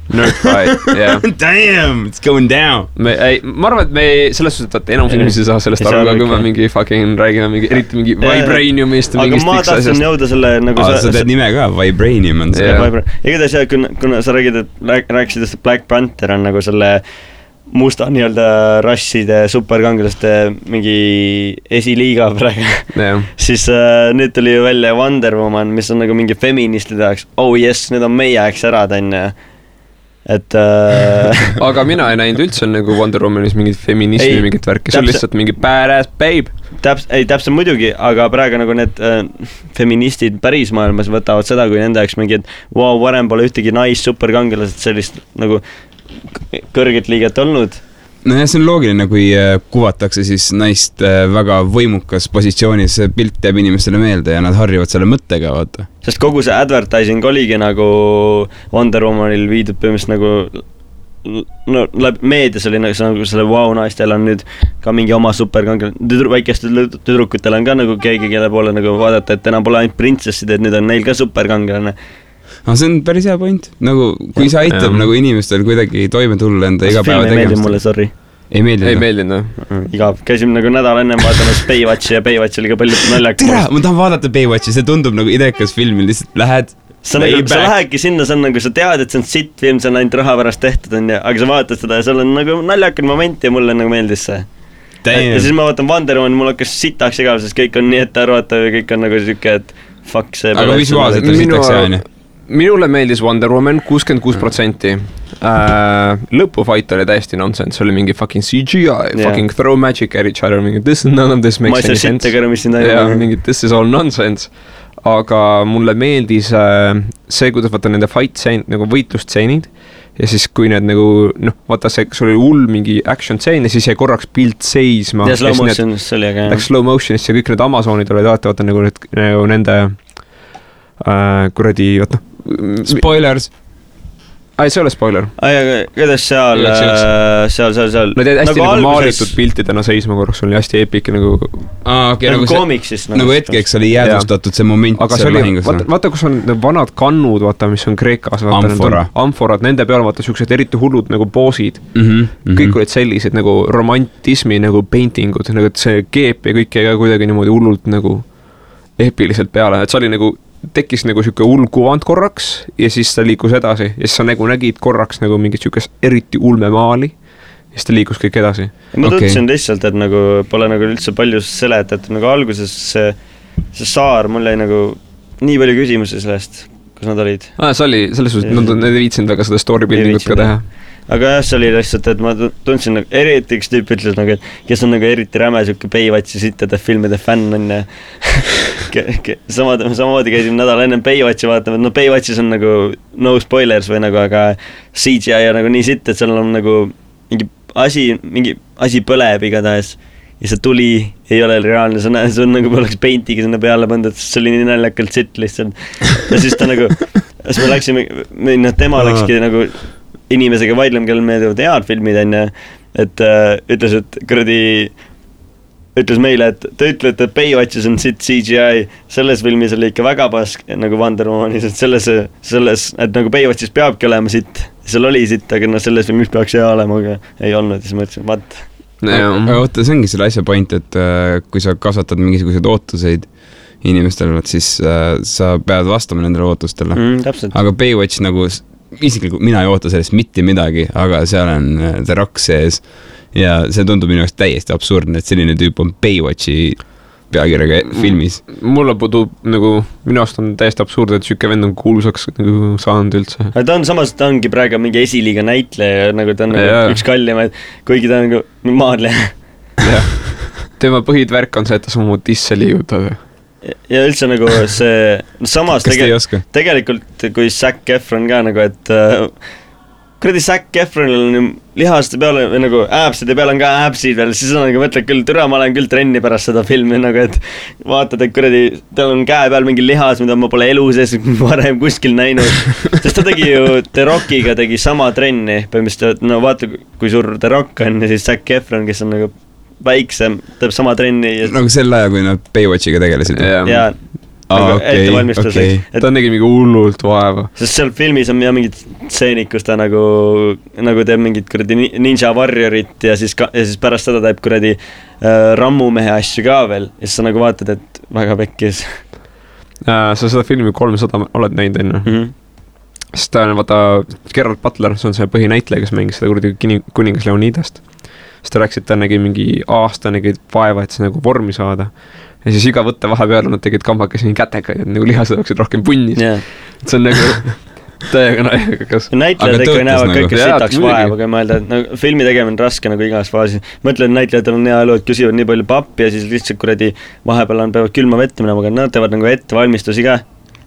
Nerdfight, yeah. Damn, it's going down. Ma arvan, et me selles suhtes, et enamus inimesi saa sellest aru, aga kui me mingi fucking räägime eriti mingi Vibraniumist. Aga ma tahtsin jõuda selle nagu... Sa teed nime ka, Vibranium on see. Igatahes jah, kuna sa rääkisid, et Black Panther on nagu selle musta nii-öelda rasside superkangelaste mingi esiliiga praegu, siis nüüd tuli ju välja Wonder Woman, mis on nagu mingi feministide jaoks, yes, need on meie jaoks ära tänne. Et aga mina ei näinud üldse nagu Wonder Womanis mingit feminismi, mingit värki, see on lihtsalt mingi badass babe. Täpselt muidugi, aga praegu nagu need feministid päris maailmas võtavad seda, kui nende jaoks mingi, et varem pole ühtegi superkangelased sellist nagu kõrget liiget olnud. No ja see on loogiline, kui kuvatakse siis naist väga võimukas positsioonis, see pilt jääb inimestele meelde ja nad harjuvad selle mõttega, vaata. Sest kogu see advertising oligi nagu Wonder Womanil viidud põhimõtteliselt nagu meedias oli nagu selle naistel on nüüd ka mingi oma superkangel, väikestel tüdrukutel on ka nagu keegi, kelle poole nagu vaadata, et enam pole ainult printsessid, et nüüd on neil ka superkangelane. See on päris hea point. Nagu, kui see aitab nagu inimestel kuidagi toime tulla enda igapäeva tegemist. Film ei meeldi mulle, sorry. Ei meeldinud. Igav. Käisime nagu nädal ennem vaatamas Baywatchi ja Baywatch oli ka palju naljak. Ma tahan vaadata Baywatchi, see tundub nagu idekas film, lihtsalt lähed. Sa lähedki sinna, see on nagu, sa tead, et see on sitt film, see on ainult raha pärast tehtud, aga sa vaatad seda ja seal on nagu naljakad moment ja mulle nagu meeldis see. Ja siis ma vaatan Wonder Woman, mul hakkas sitaks igav, sest kõik on nii ette arvatav ja kõik on nagu siuke, et fuck see. Aga visuaalselt on sitaks jääni. Minule meeldis Wonder Woman 66%. Lõpufight oli täiesti nonsense, oli mingi fucking CGI, fucking throw magic at each other, mingi none of this makes any sense. Mingi this is all nonsense. Aga mulle meeldis see, kuidas vaata nende fight-tseenid, nagu võitlustseenid ja siis kui need nagu, vaata see, kas oli hull mingi action-tseen ja siis jäi korraks pilt seisma. Ja slow motionis oli aga. Läks slow motionis ja kõik need Amazonid olid vaata nagu nende kuradi, vaata. Spoilers. See ole spoiler. Kuidas seal. Nad jäid hästi nagu maalitud piltidena seisma korraks, oli hästi epic nagu. Nagu koomiksis. Nagu hetkeks oli jäädustatud see moment. Aga see oli, vaata kus on vanad kannud, vaata, mis on Kreekas. Amforad, nende peal vaata siuksed eriti hullud nagu boosid. Kõik olid sellised nagu romantismi nagu paintingud, nagu see keep ja kõik jäi ka kuidagi niimoodi hullult nagu epiliselt peale, et see oli nagu tekkis nagu siuke hull kuvand korraks ja siis ta liikus edasi ja siis sa nagu nägid korraks nagu mingit siukest eriti ulme maali ja siis ta liikus kõik edasi. Ma tundsin lihtsalt, et nagu pole nagu üldse palju seletat, nagu alguses see saar, mul jäi nagu nii palju küsimusi sellest, kus nad olid. See oli, selles suhtes, nad ei viitsinud väga seda story buildingut ka teha. Aga jah, see oli lihtsalt, et ma tundsin nagu, eriti üks tüüp ütles nagu, et kes on nagu eriti räme siuke Baywatchi sittade filmide fänn on ja samamoodi käisin nädal enne Baywatchi vaatama, et Baywatchis on nagu no spoilers või nagu, aga CGI on nagu nii sitt, et seal on nagu mingi asi põleb igatahes ja see tuli ei ole reaalne, see on nagu oleks paintiga sinna peale pandud, see oli nii naljakalt sitt lihtsalt ja siis ta nagu, siis me läksime, tema läkski nagu inimesega vaidlema, kellel meeldivad head filmid enne, et ütles, et ütles meile, et te ütlete, et Baywatchis on sitt CGI, selles filmis oli ikka väga pask nagu Wonder Womanis, et selles, et nagu Baywatchis peabki olema sitt, seal oli sitt, aga selles filmis peaks hea olema, aga ei olnud, siis mõtlesin, vaat. Aga oota, see ongi selle asja point, et kui sa kasvatad mingisuguseid ootuseid inimestel, siis sa pead vastama nendele ootustele. Aga Baywatch nagu isiklikult mina ei oota sellest mitte midagi, aga seal on The Rock sees ja see tundub minu jaoks täiesti absurdne, et selline tüüp on Baywatchi pealkirjaga filmis. Mulle puudub nagu, minu arust on täiesti absurd, et siuke vend on kuulsaks nagu saanud üldse. Ta on samas, ta ongi praegu mingi esiliiga näitleja, nagu ta on nagu üks kallimaid, kuigi ta on nagu maadleja. Tema põhidvärk on see, et ta samu tisse liigutab. Ja üldse nagu see, samas tegelikult kui Zac Efron ka nagu, et kuradi Zac Efronil on lihaste peale või nagu äpside peale on ka äpsid veel, siis on nagu mõtled küll, türa, ma olen küll trenni pärast seda filmi nagu, et vaatad, et kuradi, tal on käe peal mingi lihas, mida ma pole elu sees varem kuskil näinud, sest ta tegi ju The Rockiga tegi sama trenni, põhimõtteliselt, no vaata, kui suur The Rock on ja siis Zac Efron, kes on nagu väiksem, teeb sama trenni ja... nagu sel ajal, kui nad Baywatchiga tegelesid ja ette valmistuseks. Ta nägi mingi hullult vaeva. Sest seal filmis on mingid stseenid, kus ta nagu teeb mingid kuradi Ninja Warriorit ja siis pärast seda teeb kuradi rammumehe asju ka veel ja siis sa nagu vaatad, et väga pekkis. Sa seda filmi 300 oled näinud enne? Sest ta on, vaata, Gerard Butler, see on see põhinäitleja, kes mängis seda kuradi kuningas Leonidast. Siis ta rääkis, et ta nägi mingi aasta nägi vaeva, et see nagu vormi saada. Ja siis iga võtte vahepeal nad tegid kambakesi kätega, et nagu lihased oleksid rohkem punnis. See on nagu täiega naegakas. Näitlejad ikka näevad kõike sitaks vaeva, kui mõelda, et nagu, filmi tegemine on raske nagu igas faasis. Mõtlen, näitlejatel on hea elu, et küsivad nii palju pappi ja siis lihtsalt kuradi vahepeal on peavad külma vette minema, aga nad teevad nagu ettevalmistusi ka.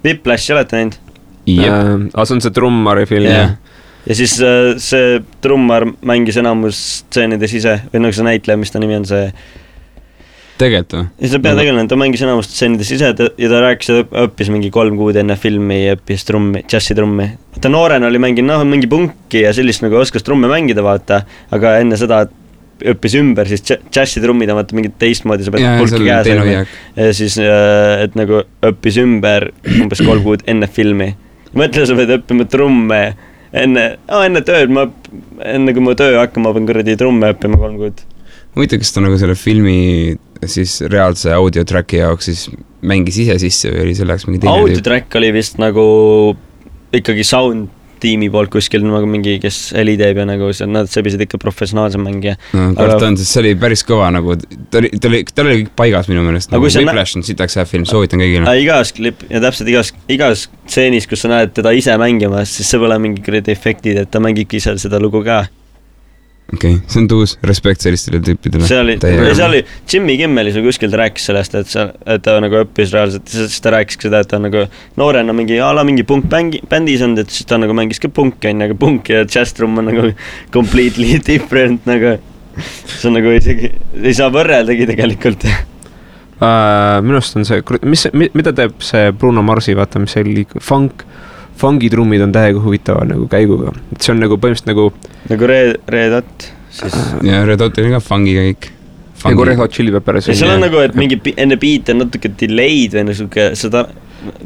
Whiplash olete näinud? Aga see on see trummari film. Ja siis see trummar mängis enamus stseenides ise, või nagu see näitleja, mis ta nimi on see... Tegelikult või? Ja see peategelane, ta mängis enamus stseenides ise ja ta rääkis, et õppis mingi 3 kuud enne filmi ja õppis trummi, džässitrummi. Ta noorena oli mänginud mingi punki ja sellist nagu oskas trumme mängida, vaata, aga enne seda õppis ümber, siis džässitrummid on vaata mingid teistmoodi, sa pead pulki käes ja siis, et nagu õppis ümber umbes 3 kuud enne filmi. Mõtle, sa pead õppima trumme enne tööd, enne kui ma töö hakkama, ma pean kuradi trumme õppima 3 kuud. Huvitav, kas ta nagu selle filmi siis reaalse audiotracki jaoks siis mängis ise sisse või oli selleks mingi teine audiotrack oli vist nagu ikkagi sound tiimi poolt kuskil nagu mingi, kes heli teeb ja nagu nad sebisid ikka professionaalse mängija. No kord on, sest see oli päris kõva nagu, ta oli kõik paigas minu meelest, nagu Whiplash on sitaks hea film, soovitan kõigile. Igas klip ja täpselt igas stseenis, kus sa näed teda ise mängimas, siis see pole mingi kuradi efektid, et ta mängibki ise seda lugu ka. Okei, see on tuus, respekt sellistele tüüpidele. See oli Jimmy Kimmelis või kuskil ta rääkis sellest, et ta nagu õppis reaalselt, siis ta rääkis seda, et ta nagu noorena mingi punk bändis on, et siis ta nagu mängis ka punki, aga punk ja jazz-trum on nagu completely different, nagu see on nagu isegi, ei saa võrreldagi tegelikult. Minust on see, mida teeb see Bruno Marsi, vaata, mis see oli fungitrummid on täiega huvitava nagu käiguga. See on nagu põhimõtteliselt nagu Red Hot siis... Ja Red Hot oli ka fungiga kõik. Nagu Red Hot Chili Peppers. Ja seal on nagu, et mingi enne beat on natuke delayed või nagu seda...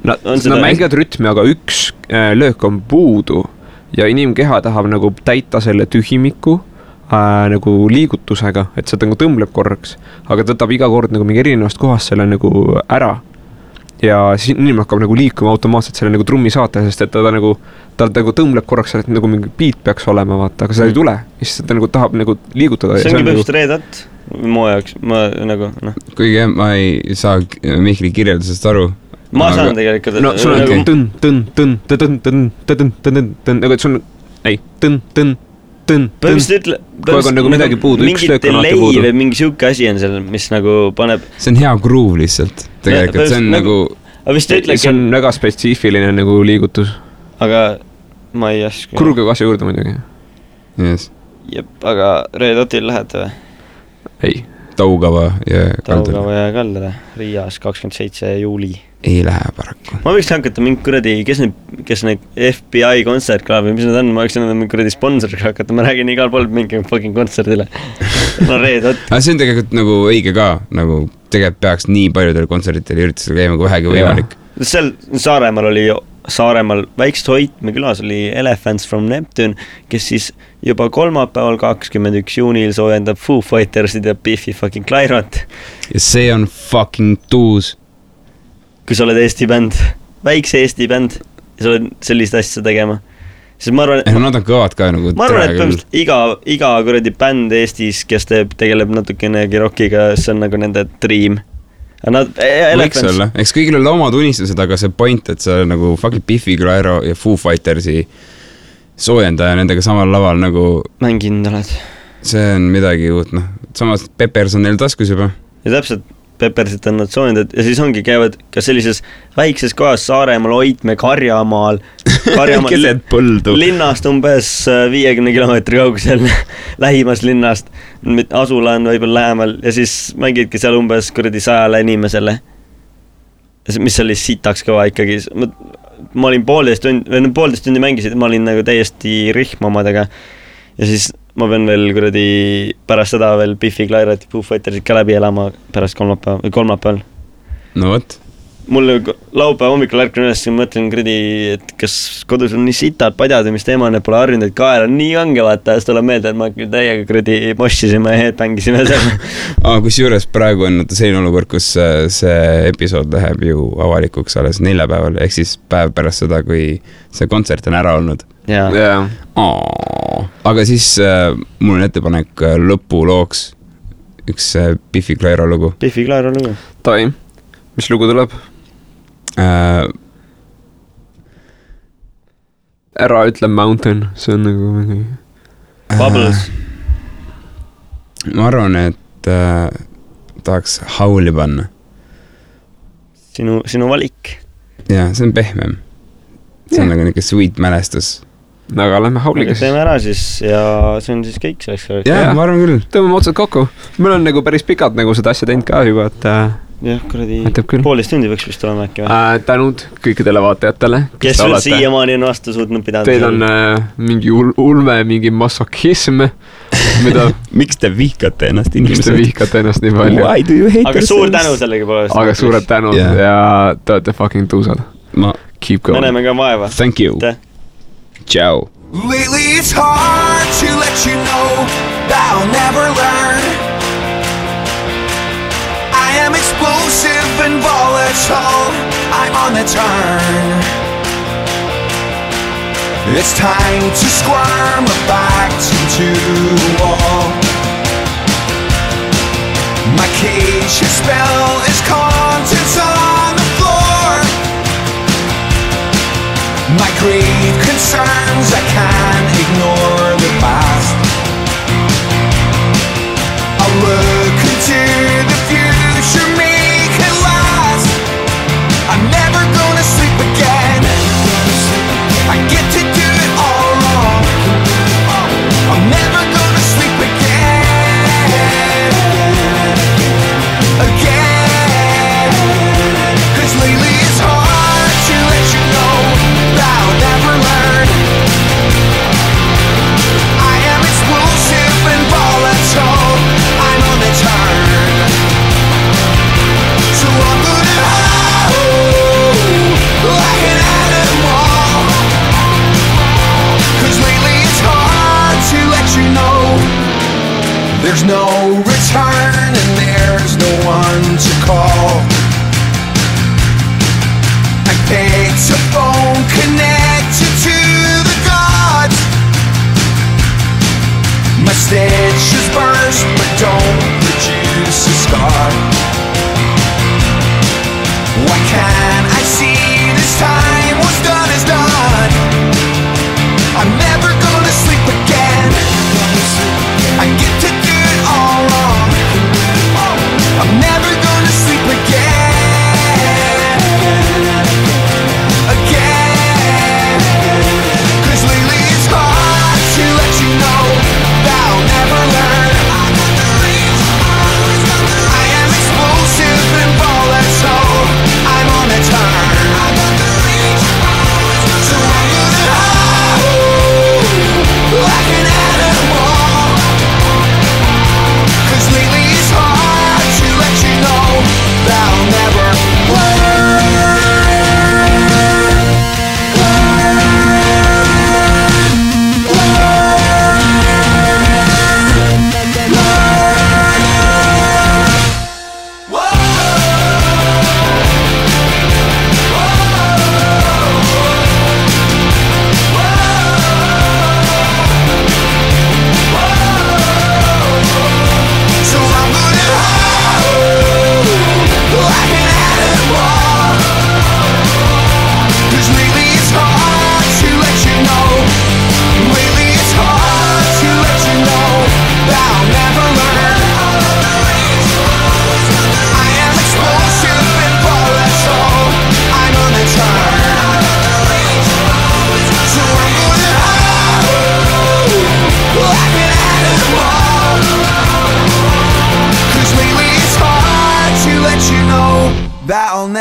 Nad mängivad rütmi, aga üks löök on puudu ja inimkeha tahab nagu täita selle tühimiku nagu liigutusega, et see nagu tõmbleb korraks, aga tõtab iga kord nagu mingi erinevast kohast selle nagu ära. Ja siis inimene hakkab nagu liikuma automaatselt selle nagu trummi saate, sest et ta nagu tõmbleb korraks, et nagu mingi beat peaks olema, vaata, aga seda ei tule. Siis ta nagu tahab nagu liigutada. See ongi põhjust Red Hot mu jaoks, ma nagu, noh. Kuigi ma ei saa Mihkli kirjeldusest aru. Ma saan tegelikult. No sul on nagu, et sul on, põhimõtteliselt nagu midagi puudu, üks löök on alati puudu. Või mingi siuke asi on seal, mis nagu paneb... See on hea groove lihtsalt, tegelikult, see on nagu... See on väga spetsiifiline nagu liigutus. Aga ma ei aska... Kurge asja juurde muidugi. Yes. Jep, aga Red Hotil lähete või? Ei. Taugava ja Kaldale. Riias 27. juuli. Ei lähe paraku. Ma võiks hakata mingi kuradi, kes need FBI kontsertklaab või mis need on, ma võiks mingi kuradi sponsoriga hakata, ma räägin igal pool mingi fucking kontserdile. No Red Hot. Aga see on tegelikult nagu õige ka, nagu tegelikult peaks nii paljudel kontsertidel üritusel käima kui vähegi võimalik. Seal Saaremaal väikest Hoitme külas oli Elephants from Neptune, kes siis juba kolmapäeval 21. juunil soojendab Foo Fightersid ja Biffi fucking Clyrot. Ja see on fucking tuus. Kui sa oled Eesti bänd, väikse Eesti bänd ja sa oled sellist asja tegema. Siis ma arvan, nad on kõvad ka nagu... Ma arvan, et põhimõtteliselt iga kuradi bänd Eestis, kes tegeleb natukenegi rockiga, see on nagu nende dream. võiks olla, eks kõigil olla omad unistused, aga see point, et sa nagu fucking Biffy Clyro ja Foo Fightersi soojendaja nendega samal laval nagu mänginud oled. See on midagi uut, noh. Samas Peppers on neil taskus juba. Ja täpselt Peppersit on nad soojendad ja siis ongi käivad ka sellises väikses kohas Saaremaal, Oitme, Karjamaal keset põldu linnast umbes 50 kilomeetri kaugusel lähimast linnast, asula on võib-olla lähemal ja siis mängidki seal umbes 100 inimesele, mis oli sitaks kõva ikkagi. Ma olin 1,5 tundi mängisid, ma olin nagu täiesti rihm omadega ja siis ma pean veel pärast seda veel Biffy Clyro ja Foo Fightersid ka läbi elama pärast kolmapäeval. No võt. Mul laupäeva hommikul ärkan üles ja mõtlen, et kas kodus on nii sitad padjad ja mis teema on, et pole harjunud, et kael on nii kange, vaata, siis tuleb meelde, et ma täiega mossisime ja headbangisime seal. Kus juures praegu on selline olukord, kus see episood läheb ju avalikuks alles 4 päeval, ehk siis päev pärast seda, kui see kontsert on ära olnud. Yeah. Aga siis mul on ettepanek lõpulooks üks Biffy Clyro lugu. Biffy Clyro lugu. Tai, mis lugu tuleb? Ära ütle Mountain, see on nagu mingi Bubbles. Ma arvan, et tahaks Howli panna. Sinu valik. Ja, see on pehmem. See on nagu niisugune sweet mälestus. Aga lähme Howliga. Teeme ära siis ja see on siis kõik selleks. Ja, ma arvan küll. Tõmbame otsad kokku. Meil on nagu päris pikalt nagu seda asja teinud ka juba, et jah, 1,5 tundi võiks vist olema äkki või? Tänud kõikidele vaatajatele. Kes veel siiamaani on vastu suutnud pidada? Teil on mingi ulme, mingi masokism, mida... Miks te vihkate ennast inimesed? Miks te vihkate ennast nii palju? Why do you hate aga suur tänu sellega pole. Aga suured tänud ja te olete fucking tuusad. Keep going. Meneme ka vaeva. Thank you. Ciao. Lately it's hard to let you know that I'll never learn. I am explosive and volatile, I'm on the turn. It's time to squirm back into the wall. My cage, your spell is contents on the floor. My grave concerns, I can't ignore the past. I'll look into the future, make it last. I'm never gonna sleep again. I get to do it all wrong. I'm never gonna sleep again. Again. 'Cause lately it's hard to let you know that I'll never learn. I am explosive and volatile, I'm on the turn. So I'm gonna howl like an animal. 'Cause lately it's hard to let you know there's no return and there's no one to call. I picked a phone connected to the gods. My stitches burst but don't produce a scar. Why can't I see this time what's done is done? I'm never gonna sleep again. I get to do it all wrong. I'm never gonna sleep again. Again. 'Cause lately it's hard to let you know that I'll never learn. I am explosive and volatile, I'm on a turn.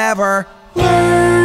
never learn.